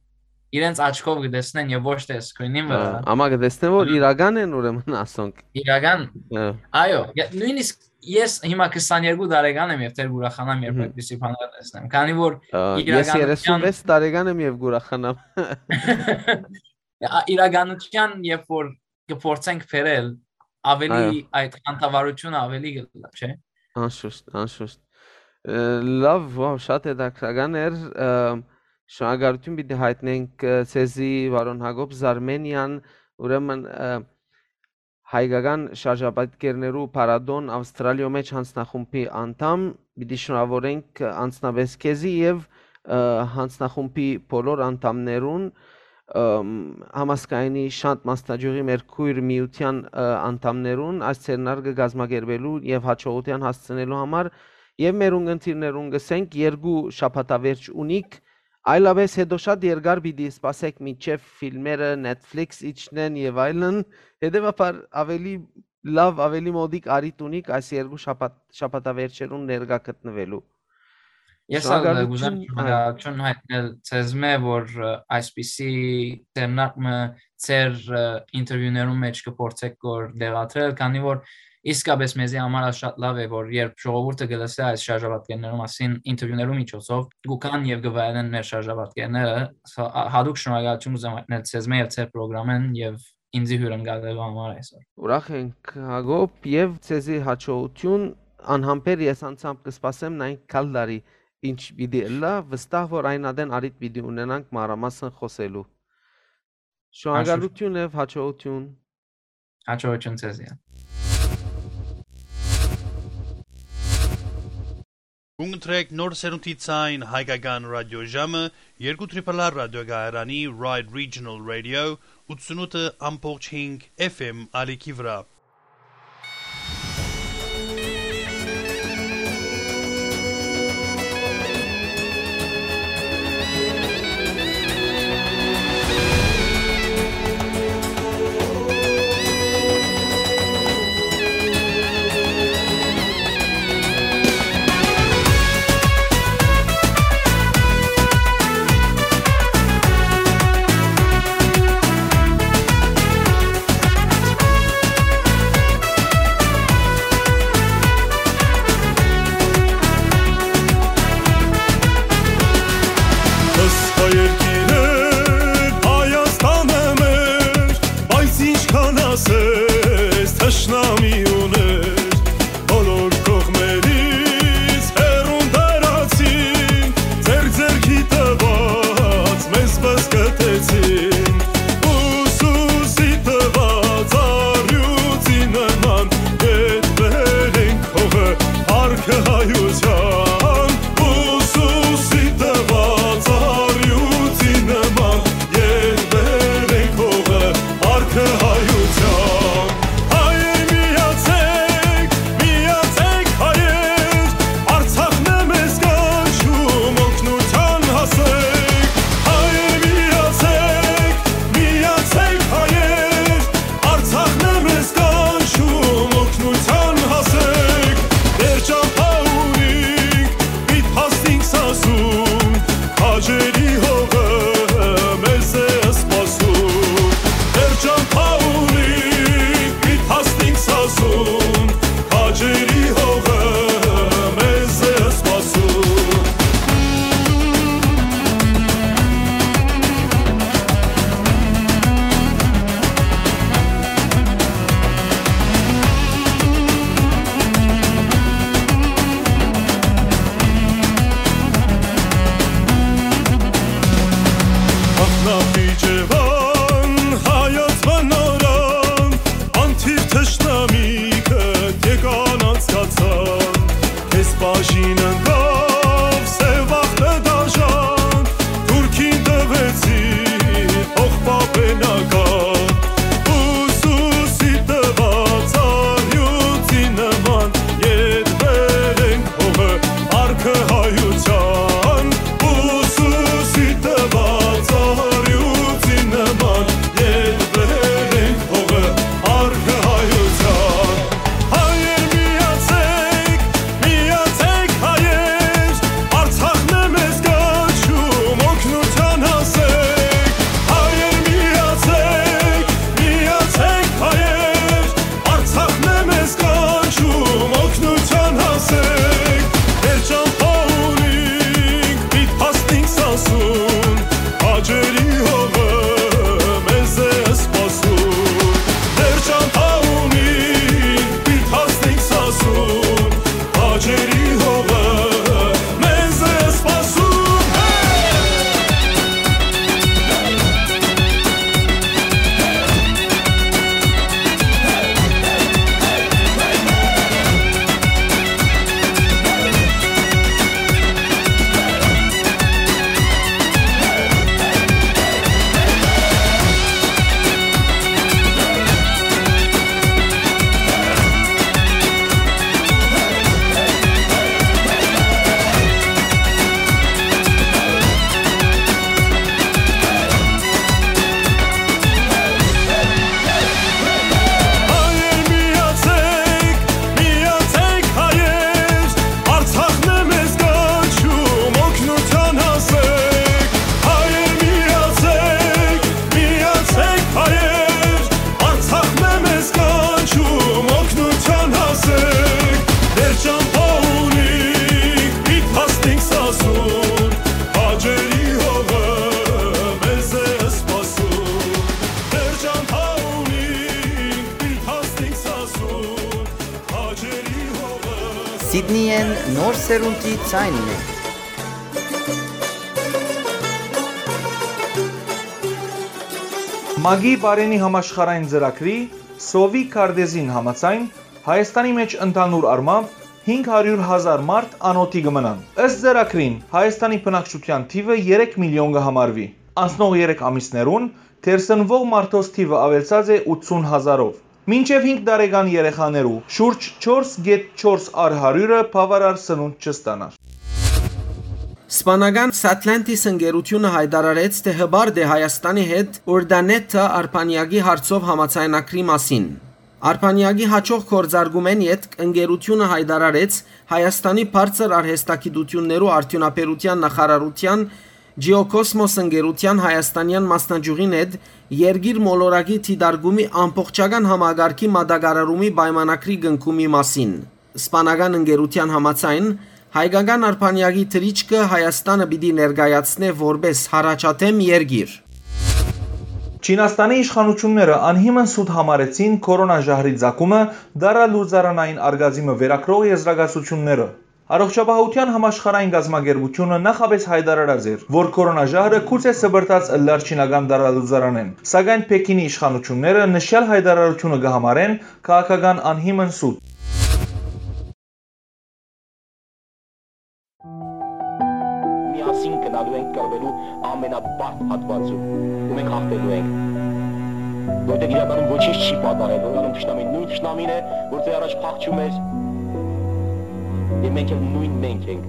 իրենց աչքով կտեսնեն եւ ոչ թե screen-ին վրա։ Ա, ամա կտեսնեն, որ Ա։ իրական են, ուրեմն, ասոնք։ Իրական։ Ա։ Այո, ե-, նույնիսկ ես հիմա քսաներկու տարեկան եմ եւ դեռ կուրախանամ, երբ Մհմ։ այդպիսի բաներ տեսնեմ, քանի որ Ա, ես իրականության երեսունվեց տարեկան եմ եւ կուրախանամ։ Ա, իրականության, երբ որ կփորձենք բերել, ավելի Այո։ այդ խանդավառությունը ավելի կլա, չէ՞։ Անշուշտ, անշուշտ։ Ը, լավ, վաու, շատ հետաքրքրական էր, ը, շնորհակալություն պիտի հայտնենք, ը, ձեզի, պարոն Յակոբ Զարմենյան, ուրեմն, ը, հայկական շարժապատկերներու փառատոն Ավստրալիոյ մէջ յանձնախումբի անդամ, պիտի շնորհավորենք, ը, անձնապէս քեզի եւ, ը, յանձնախումբի բոլոր անդամներուն, ըմ, համազգայինի Շանթ Մասնաճյուղի մեր քոյր միութեան, ը, անդամներուն այս ձեռնարկը կազմակերպելու եւ հաջողութեան հասցնելու համար եւ մեր ունգընտիրներուն կ'ըսենք երկու շաբաթավերջ ունիք, այլապես հետո շատ երկար պիտի սպասեք մինչեւ ֆիլմերը Netflix իջնեն եւ այլն, հետեւաբար ավելի լաւ, ավելի մոդիկ առիթ ունիք այս երկու շաբաթ-, շաբաթավերջերուն ներկայ գտնուելու։ Ես ալ Շնորհակալություն, կուզեմ այո։ շնորհակալություն հայտնել ձեզմէ, որ, ը, այսպիսի ձեռնարկը ձեր, ը, ինտերվիուներուն մէջ կփորձեք որ դեղադրել, քանի որ իսկապես մեզի համար ալ շատ լաւ է, որ երբ ժողովուրդը կլսէ այս շարժապատկերներու մասին ինտերվիուներու միջոցով, կուքան եւ կվայելեն մեր շարժապատկերները, սա, ա, հատուկ շնորհակալություն կուզեմ հայտնել ձեզմէ եւ ձեր պրոգրամին եւ ինծի հիւրընկալելու համար այսօր։ Ուրախ ենք, Յակոբ, եւ ձեզի հաջողութիւն։ Անհամբեր ես անձամբ կը սպասեմ նայենք գալ տարի ինչ պիտի ըլլայ, վստահ որ այն ատեն առիթ պիտի ունենանք մանրամասն խօսելու։ Շնորհակալութիւն եւ հաջողութիւն։ Հաջողութիւն ձեզի։ Կունկնդրեք նոր սերունդի ցայն հայկական ռադիոժամը, երկու Triple R ռադիոկայարանի Ride Regional Radio, ութսունութ ամբողջ հինգ F M ալիքի վրայ։ Ըստ երկիրը Հայաստանը մեր, բայց ինչքան ասես թշնամի ուներ, բոլոր կողմերից հեռուն տարածին, ձեր ձեռքի տված մեզ բզկտեցին, ուսուսի տված առյուծի նման, ետ բերենք հողը, արկը հայության, ուսուսի տված առյուծի նման, երբեր ենք հողը, արկը հայության։ Հայեր միացեք, միացեք հայեր, Արցախն է մեզ կանչում, օգնության հասեք։ Հայեր միացեք, միացեք հայեր, Արցախն է մեզ կանչում, օգնության հասեք։ Մեր ճամփա ունինք, պիտ հասնինք սասուն, քաջերի հողը մեզ է սպասում։ Մեր ճամփա ունինք, պիտ հասնինք սասուն, քաջերի հողը մեզ է սպասում։ Ախնապի Ջեվան, հայոց բնորան, անթիվ թշնամիքը եկան անցկացան, քեզ բաժին ընկավ սեւ ախտը դաժան, թուրքին տվեցի փոխպապենական, ուսուսի տված առյուծի նման, ետ բերենք հողը, արկը հայության, ուսուսի տված առյուծի նման, ետ բերենք հողը, արկը հայության։ Հայեր միացեք, միացեք հայեր, Արցախն է մեզ կանչում, օգնության հասեք։ Հայեր միացեք, միացեք հայեր, Արցախն է մեզ կանչում, օգնության հասեք։ Մեր ճամփա ունինք, պիտ հասնինք սասուն, քաջերի հողը մեզ է սպասում։ Մեր ճամփա ունինք, պիտ հասնինք սասուն, քաջերի հողը մեզ է սպասում։ Հայեր միացեք, միացեք հայեր, Արցախն է մեզ կանչում, օգնության հասեք։ Հայեր միացեք, միացեք հայեր, Արցախն է մեզ կանչում, օգնության հասեք։ Մեր ճամփա ունինք, պիտ հասնենք սասուն, քաջերի հողը մեզ է սպասում։ Մեր ճամփա Սիդնիէն նոր սերունդի ձայնն է։ ՄԱԿ-ի Պարէնի համաշխարհային ծրագրի Սովի քարտէզին համաձայն, Հայաստանի մէջ ընդհանուր առմամբ հինգ հարիւր հազար մարդ անօթի կը մնան։ Ըստ ծրագրին, Հայաստանի բնակչութեան թիւը երեք միլիոն կը համարուի։ Անցնող երեք ամիսներուն թերսնուող մարդոց թիւը աւելցած է ութսուն հազարով։ Մինչեւ հինգ տարեկան երեխաներու շուրջ չորս կէտ չորս առ հարիւրը բաւարար սնունդ չստանար։ Սպանական Satlantis ընկերութիւնը յայտարարեց, թէ հպարտ է Հայաստանի հետ Ուրդանեթա արբանեակի հարցով համաձայնագրի մասին։ Արբանեակի յաջող գործարկումէն ետք ընկերութիւնը յայտարարեց Հայաստանի բարձր արհեստագիտութիւններու արդիւնաբերութեան նախարարութեան Ջիոքոսմոս ընկերութեան հայաստանեան մասնաճիւղին հետ երկիր մոլորակի դիտարկումի ամբողջական համակարգի մատակարարումի պայմանագրի կնքումի մասին։ Սպանական ընկերութեան համաձայն, հայկական արբանեակի թռիչքը Հայաստանը պիտի ներկայացնէ որպէս յառաջադէմ երկիր։ Չինաստանի իշխանութիւնները անհիմն սուտ համարեցին քորոնա ժահրի ծագումը տարալուծարանային արգածի մը վերագրող եզրակացութիւնները։ Առողջապահութեան համաշխարհային կազմակերպութիւնը նախապէս յայտարարած էր, որ քորոնա ժահրը գուցե սպրդած ըլլար չինական տարալուծարանէն, սակայն Փեքինի իշխանութիւնները նշեալ յայտարարութիւնը կը համարեն քաղաքական անհիմն սուտ։ Միասին գնալու ենք կռվելու ամենաբարդ հատվածում, ու մենք հաղթելու ենք։ Որտեղ իրականում ոչինչ չի պատահել, որտեղ թշնամին նոյն թշնամին է, որ ձեր առաջ փախչում էր, եւ մենք էլ նոյն մենք ենք։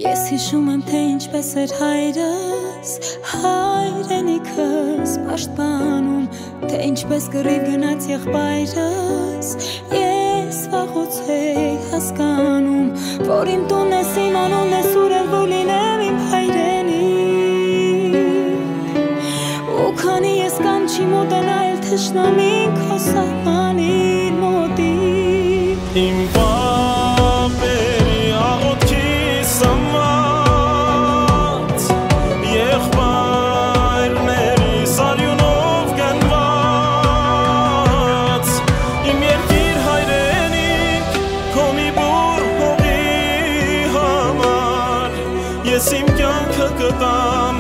Ես հիշում եմ, թե ինչպես էր հայրս, հայրենիքս պաշտպանում, թե ինչպես կռիվ գնաց եղբայրս, ես վաղուց էի հասկանում, որ իմ տունն ես, իմ անունն ես, ուր էլ որ լինեմ իմ հայրենիք։ Ու քանի ես կանչի, մոտենայ էլ թշնամին քո սահմանին մոտիկ։ Իմ պապերի աղոթքի սնված, եղբայրներիս արիւնով կնված, իմ երկիր հայրենիք, քո մի բուռ հողի համար, ես իմ կեանքը կտամ,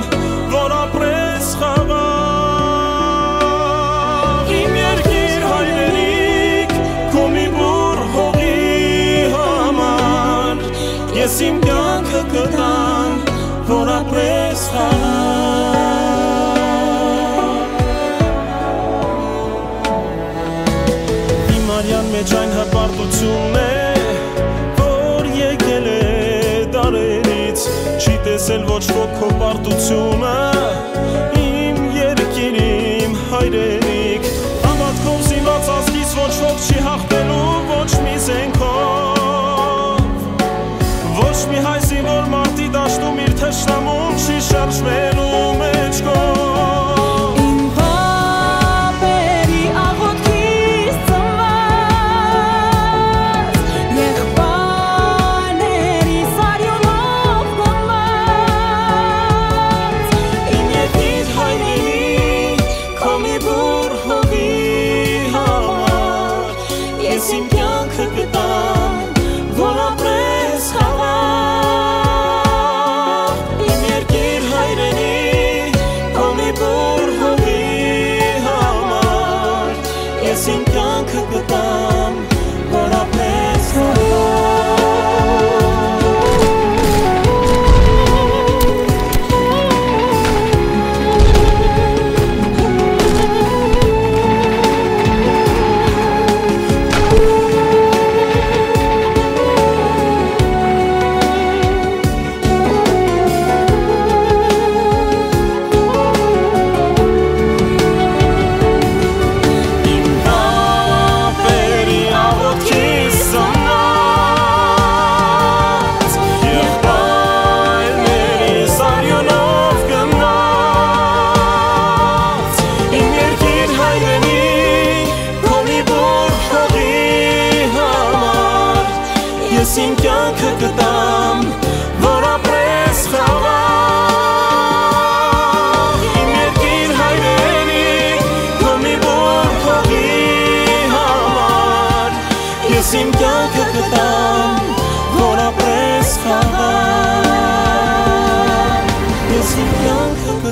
որ ապրես խաղաղ։ Իմ երկիր հայրենիք, քո մի բուռ հողի համար, ես իմ կեանքը կտամ, որ ապրես խաղաղ։ Իմ արեան մէջ այն հպարտությունն է, որ եկել է դարերից, չի տեսել ոչ ոք քո պարտությունը, իմ երկիր, իմ հայրենիք։ Հաւատքով զինված ազգիս ոչ ոք չի հաղթելու ոչ մի զէնքով, ոչ մի հայ զինվոր մարտի դաշտում իր թշնամուն չի շարժվելու մէջքով։ Իմ պապերի աղոթքից ծնված, եղբայրներիս արիւնով կնված, իմ երկիր հայրենիք, քո մի բուռ հողի համար, ես իմ կեանքը կտամ, որ ապրես խաղաղ, իմ երկիր հայրենիք,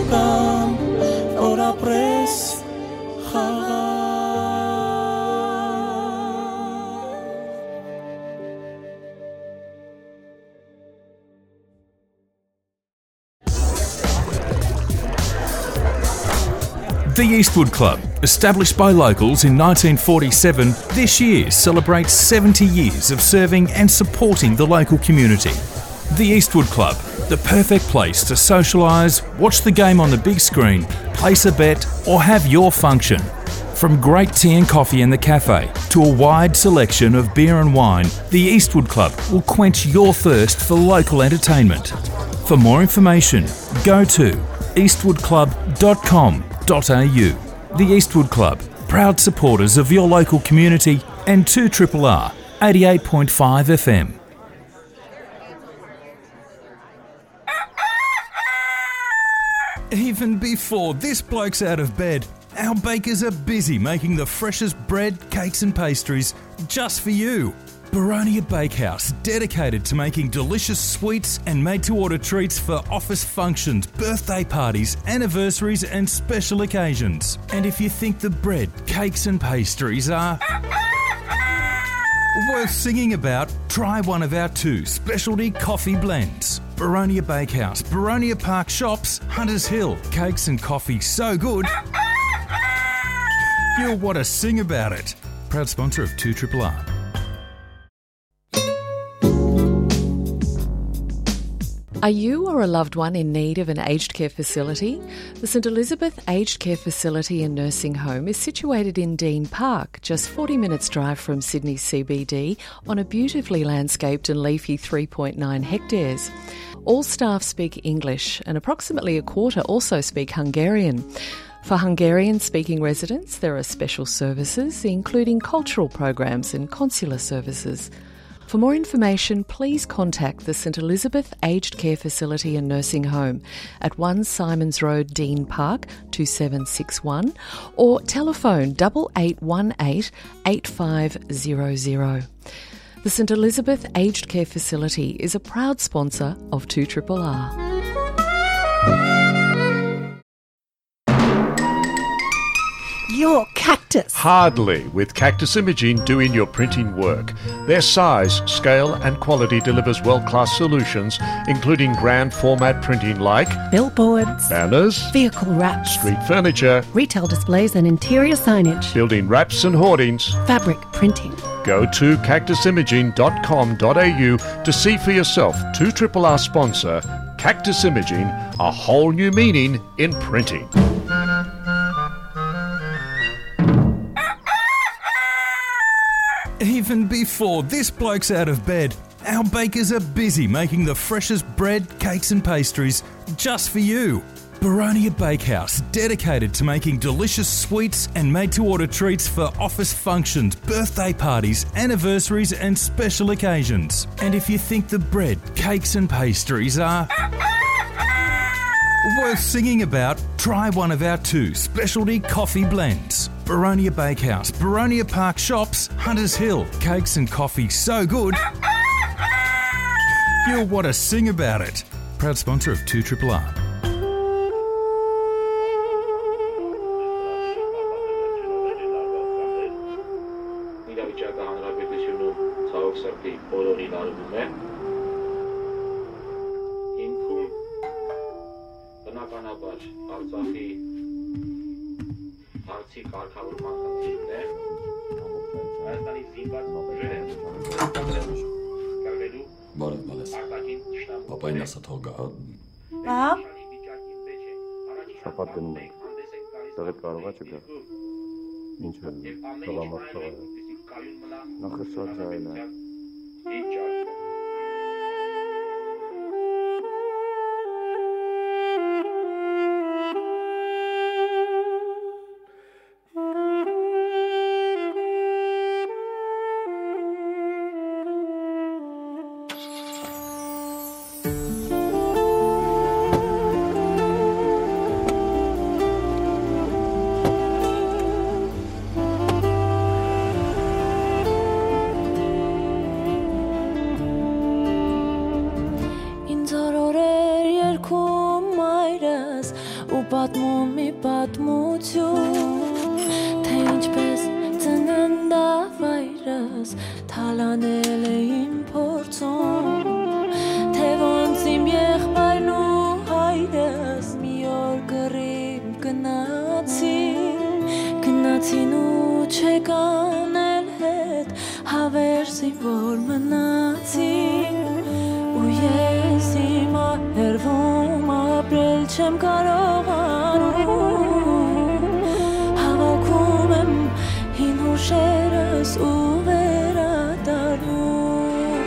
Կամ որ ապրես խաղաղ։ The Eastwood Club, established by locals in nineteen forty-seven, this year celebrates seventy years of serving and supporting the local community. The Eastwood Club, the perfect place to socialise, watch the game on the big screen, place a bet, or have your function. From great tea and coffee in the cafe to a wide selection of beer and wine, the Eastwood Club will quench your thirst for local entertainment. For more information, go to eastwood club dot com dot a u. The Eastwood Club, proud supporters of your local community and two triple R, eighty-eight point five F M. Even before this bloke's out of bed, our bakers are busy making the freshest bread, cakes and pastries just for you. Baronia Bakehouse, dedicated to making delicious sweets and made-to-order treats for office functions, birthday parties, anniversaries and special occasions. And if you think the bread, cakes and pastries are worth singing about, try one of our two specialty coffee blends. Baronia Bakehouse, Baronia Park Shops, Hunters Hill. Cakes and coffee so good, you'll want to sing about it. Proud sponsor of two triple R. Are you or a loved one in need of an aged care facility? The St Elizabeth Aged Care Facility and Nursing Home is situated in Dean Park, just forty minutes drive from Sydney C B D, on a beautifully landscaped and leafy three point nine hectares. All staff speak English, and approximately a quarter also speak Hungarian. For Hungarian-speaking residents, there are special services, including cultural programs and consular services. For more information, please contact the St Elizabeth Aged Care Facility and Nursing Home at one Symonds Road, Dean Park, two seven six one, or telephone double eight one eight, eight five zero zero. The St Elizabeth Aged Care Facility is a proud sponsor of two triple R. Your cactus. Hardly, with Cactus Imaging doing your printing work. Their size, scale, and quality delivers world-class solutions, including grand format printing like billboards, banners, vehicle wraps, street furniture, retail displays and interior signage, building wraps and hoardings, fabric printing. Go to cactus imaging dot com dot a u to see for yourself two triple R sponsor Cactus Imaging, a whole new meaning in printing. Even before this bloke's out of bed, our bakers are busy making the freshest bread, cakes and pastries just for you. Baronia Bakehouse, dedicated to making delicious sweets and made-to-order treats for office functions, birthday parties, anniversaries and special occasions. And if you think the bread, cakes and pastries are worth singing about, try one of our two specialty coffee blends. Baronia Bakehouse, Baronia Park Shops, Hunters Hill. Cakes and coffee so good, you'll want to sing about it. Proud sponsor of two triple R. Իրավիճակը հանրապետությունում ցավոք սրտի բոլորին արվում է։ Հիմքում բնականաբար Արցախի հարցի կարգավորման խնդիրն է։ Հայաստանի զինված ուժերը կռվելու Բարև, բարև։ Արտաքին թշնամու Պապային ասա թող գա, հա։ Հա։ Շապատ գնում ենք։ Տեղը կարող ա չգա։ Ինչ է սալամատ թողը։ Նախշած այլ է։ Պատմում մի պատմություն, թե ինչպես ծննդավայրս թալանել է իմ փորձում, թե ոնց իմ եղբայրն ու հայրս մի օր կռիվ գնացին, գնացին ու չեկան էլ հետ, հավերժ զինվոր մնացին, ու ես հիմա հեռվում ապրել չեմ կարողանում։ Հավաքում եմ հին հուշերս ու վերադառնում։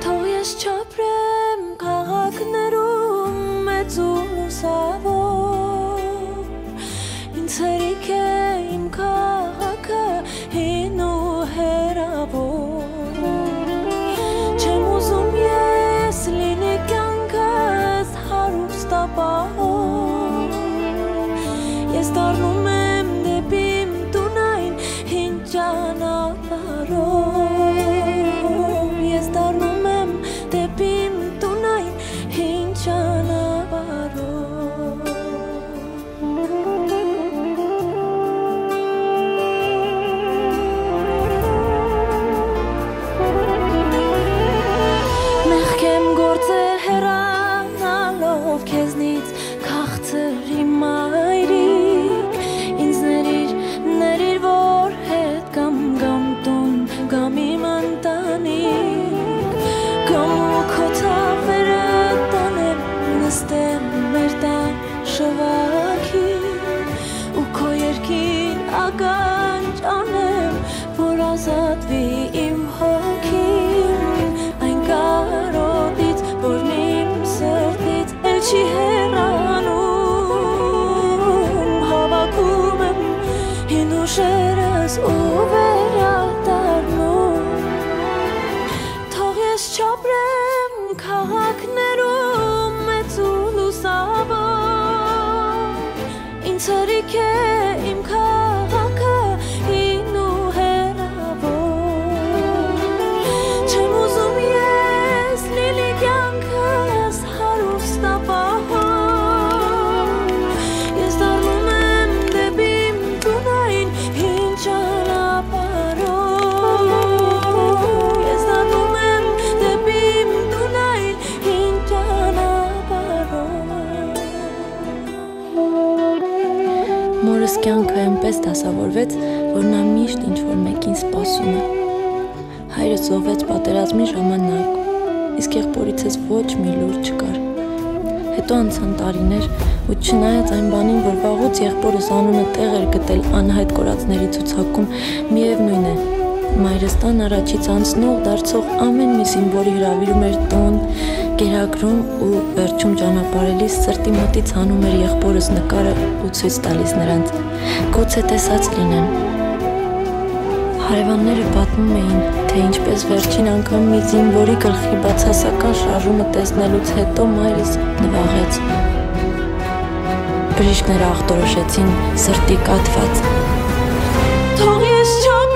Թող ես չապրեմ քաղաքներում մեծ ու լուսաւոր, ինձ հերիք է իմ քաղաքը հին ու հեռաւոր։ Չեմ ուզում ես լինի կեանքս հարուստ ապահով։ Ես դառնում եմ դէպի իմ տուն այն հին ճանապարհով։ Ես դառնում եմ դէպի իմ տուն այն հին ճանապարհով։ Մեղքեմ գործեր հեռանալով քեզնից, քաղցր իմ մայրիկ, ինձ ներիր, ներիր, որ հետ կամ, կամ տուն, կամ իմ ընտանիք, կամ ու քո թափերը տանեմ, նստեմ մեր տան շուակին, ու քո երկին ականջ անեմ, որ ազատվի իմ հոգին այն կարոտից, որն իմ սրտից էլ չի հեռանում։ Հավաքում եմ հին հուշերս ու վերադառնում։ Թող ես չապրեմ քաղաքներում մեծ ու լուսաւոր, ինձ հերիք է իմ քաղաքը հին ու հեռաւոր։ Չեմ ուզում ես լինի կեանքս հարուստ ապահով։ Ես դառնում եմ դէպի իմ տուն այն հին ճանապարհով։ Ես դառնում եմ դէպի իմ տուն այն հին ճանապարհով։ Մորս կեանքը այնպէս դասաւորուեց, որ նա միշտ ինչ-որ մէկին սպասում է։ Հայրս զոհվեց պատերազմի ժամանակ, իսկ եղբորիցս ոչ մի լուր չկար։ Հետո անցան տարիներ, ու չնայած այն բանին, որ վաղուց եղբորս անունը տեղ էր գտել անյայտ կորածների ցուցակում, միեւնոյն է, մայրս տան առաջից անցնող դարձող ամեն մի զինվորի հրաւիրում էր տուն, կերակրում ու վերջում ճանապարհելիս սրտի մտից հանում էր եղբորս նկարը ու ցոյց տալիս նրանց։ Գուցե տեսած լինեն։ Հարեւանները պատմում էին, թե ինչպես վերջին անգամ մի զինվորի գլխի բացասական շարժումը տեսնելուց հետո մայրս նուաղեց։ Բժիշկները ախտորոշեցին սրտի կաթված։ Թող ես չապրեմ։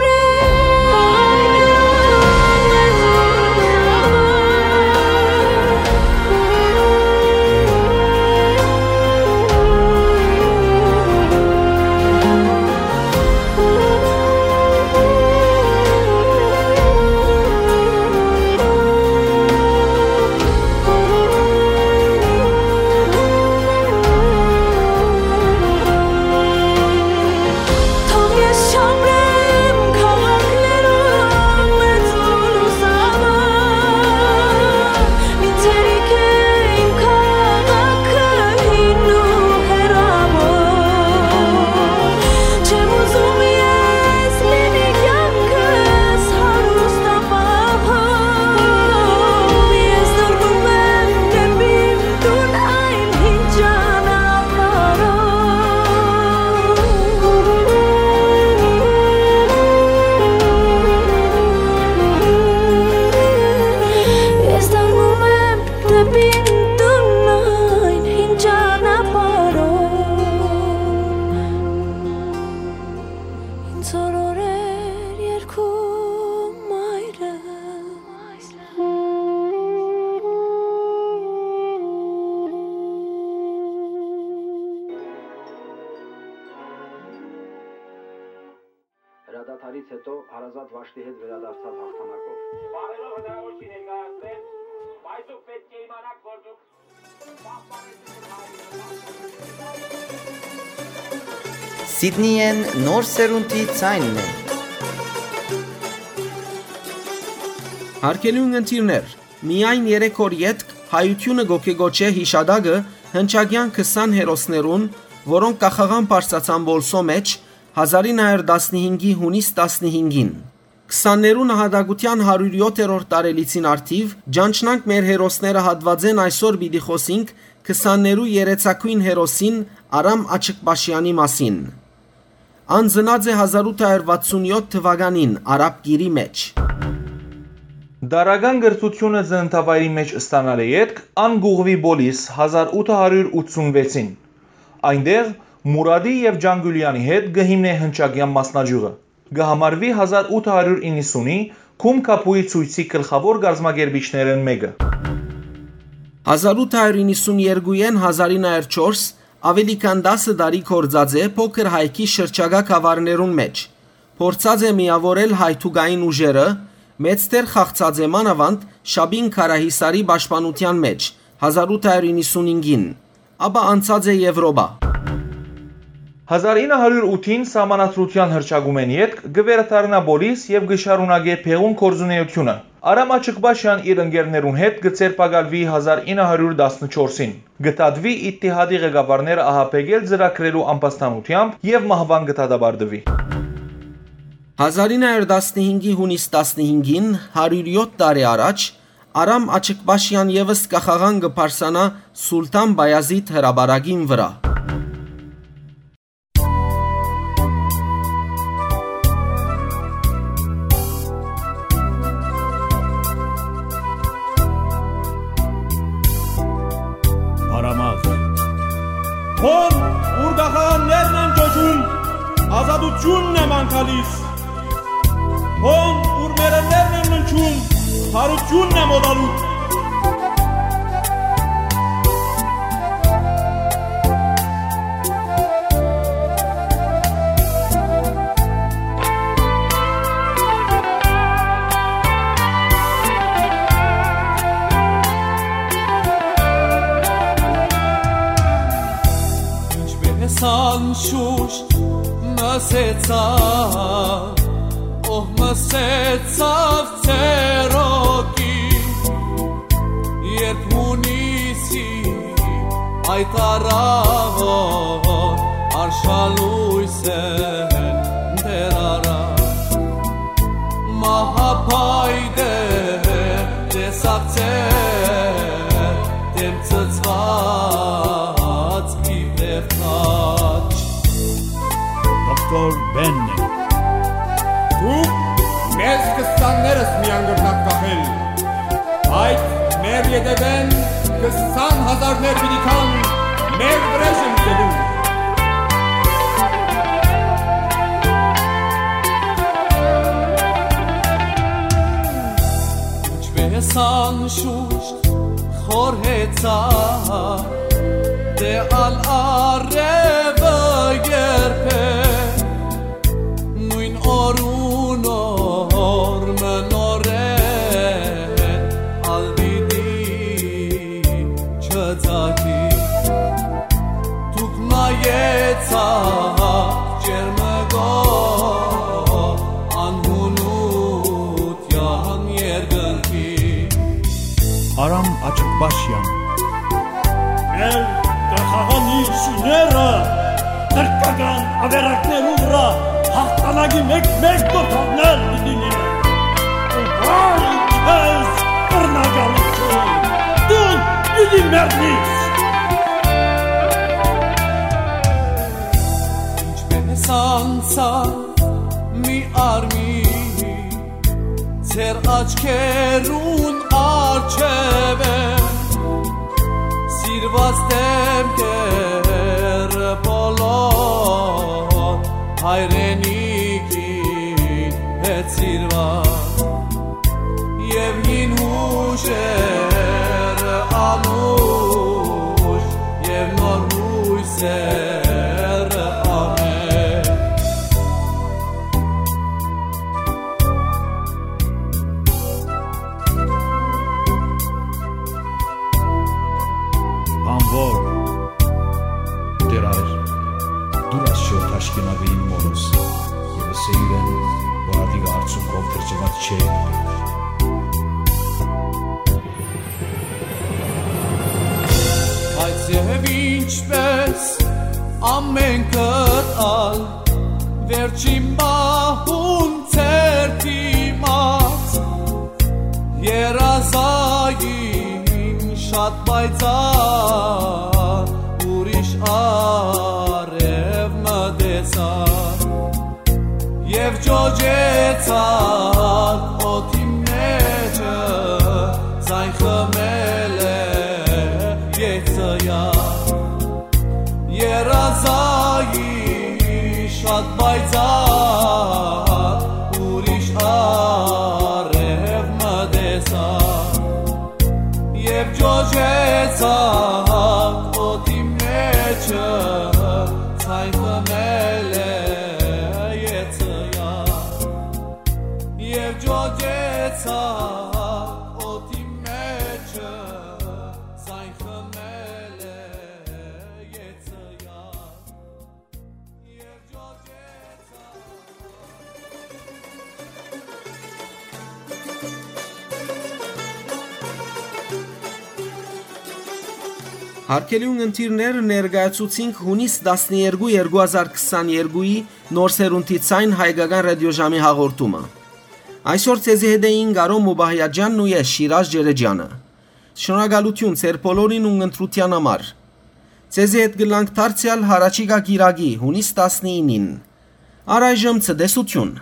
Հետո հարազատ Վաշտի հետ վերադարձաւ հաղթանակով։ Բարերով հնարավոր չի ներկայացնել, բայց դուք պետք է իմանաք, որ դուք Սիդնիեն նոր սերունդի ձայնն է։ Հարգելի ունգընտիրներ, միայն երեք օր ետք հայութիւնը գոկեգոչէ յիշատակը հնչակեան քսան հերոսներուն, որոնք կախաղան բարձրացան Պոլսոյ մէջ հազար ինը հարիւր տասնհինգի յունիս տասնհինգին։ Քսաններու նահատակութեան հարիւր յոթերորդ տարելիցին առթիւ, ճանչնանք մեր հերոսները հատուածէն այսօր պիտի խօսինք քսաններու երեցակոյն հերոսին Արամ Աչկպաշեանի մասին։ Ան ծնած է հազար ութ հարիւր վաթսուն յոթ թուականին Արաբկիրի մէջ։ Դարական կրթութիւնը ծննդավայրի մէջ ստանալէ ետք, ան կ'ուղղուի Պոլիս հազար ութ հարիւր ութսուն վեցին։ Այնտեղ Մուրադի եւ Ջանգուլեանի հետ կը հիմնէ հնչակեան մասնաճիւղը։ Կը համարուի հազար ութ հարիւր իննսունի Գում Կապուի ցոյցի գլխաւոր կազմակերպիչներէն մէկը։ Հազար ութ հարիւր իննսուն երկուին հազար ինը հարիւր չորս աւելի քան տասը տարի գործած է փոքր հայքի շրջակայ գաւառներուն մէջ։ Փորձած է միաւորել հայ թուկային ուժերը, մեծ դեր խաղցած է մանաւանդ Շապին Քարահիսարի պաշտպանութեան մէջ հազար ութ հարիւր իննսունհինգին, ապա անցած է Եւրոպա։ Հազար ինը հարիւր ութին սահմանադրութեան հռչակումէն ետք կը վերադառնայ Պոլիս եւ կը շարունակէ բեղուն գործունէութիւնը։ Արամ Աչկպաշեան իր ընկերներուն հետ կը ձերբակալուի հազար ինը հարիւր տասնչորսին։ Կը դատուի Իթտիհադի ղեկավարները ահաբեկել ծրագրելու ամբաստանութեամբ եւ մահուան կը դատապարտուի։ Հազար ինը հարիւր տասնհինգի յունիս տասնհինգին, հարիւր յոթ տարի առաջ, Արամ Աչկպաշեան եւս կախաղան կը բարձրանայ Սուլթան Պայազիթ հրապարակին վրայ։ Արամաղ։ Հոն, ուր կախաղաններն են ճոճում, ազատութիւնն է մանկալիս։ Հոն, ուր մեռելներն են ննջում, բարութիւնն է մօտալուտ։ Ինչպէս անշուշտ մսեցաւ, ով մսեցաւ ծերոկի, երբ յունիսի այդ առաւոր արշալոյս են դեռ առած, մահապայտեր տեսակ ծեր դեմ ծծված իբրեւ խաչ։ Դոկտոր Բեննե։ Դուք մեզ քսաններս միան կրնաք կախել, բայց մեր ետևէն քսան հազարներ պիտի գան մեր վրեժը լուծելու։ Ինչպէս անշուշտ խորհեցա, դե ալ արևը երբեք նոյն օրուն օր մը նորէն ալ պիտի չծագի։ Դուք նայեցաք ջերմկող անհունութեան երկնքի։ Արամ Աչկպաշեան։ Մեր կախաղան շիները թրքական ավերակներու վրայ հաղթանակի մեկ-մեկ դոթաններ պիտի լինեն։ Ու հայ քեզ կրնագալություն, դու պիտի մեռնիս։ Ինչպես անցա մի արմի ձեր աչքերուն առջեւը, սիրված դեմքերը բոլոր հայրենիքի հետ սիրված, եւ հին հուշերը անուշ, եւ նոր հույսերը ամեն։ Որ, Տէր Ա, դուր աս չոր թաշկինակը իմ մօրս, եւ ըսէ իրեն, որ ատիկա արդյունքով կրթուած չէ։ Բայց եւ ինչպես ամէնքդ ալ, վերջին պահուն ձեր դիմաց, երազային շատ պայծառ ուրիշ արեւ մը տեսայ, եւ ջոջեցաք օդի մէջը, ձայն խմել է երազային շատ պայծառ ուրիշ արեւ մը տեսայ, եւ ջոջեցաք օդի մէջը, ձայն խմել է երազային, եւ ջոջեցաք օդի մէջը, ձայն խմել է երազային, եւ ջոջեցաք։ Յարգելի ունգընտիրներ, ներկայացուցինք յունիս տասներկու, երկու հազար քսաներկուի նոր սերունդի Ձայն հայկական ռատիոժամի հաղորդումը։ Այսօր ձեզի հետ էին Կարո Մուբահյաջյանն ու ես, Շիրազ Ջերեջյանը։ Շնորհակալութիւն ձեր բոլորին ունգընտրութեան համար։ Ձեզի հետ կ'ըլլանք դարձեալ յառաջիկայ կիրակի, յունիս տասնինին։ Առայժմ ցտեսութիւն։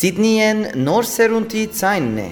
Սիդնիէն Նոր Սերունդի Ձայնն է։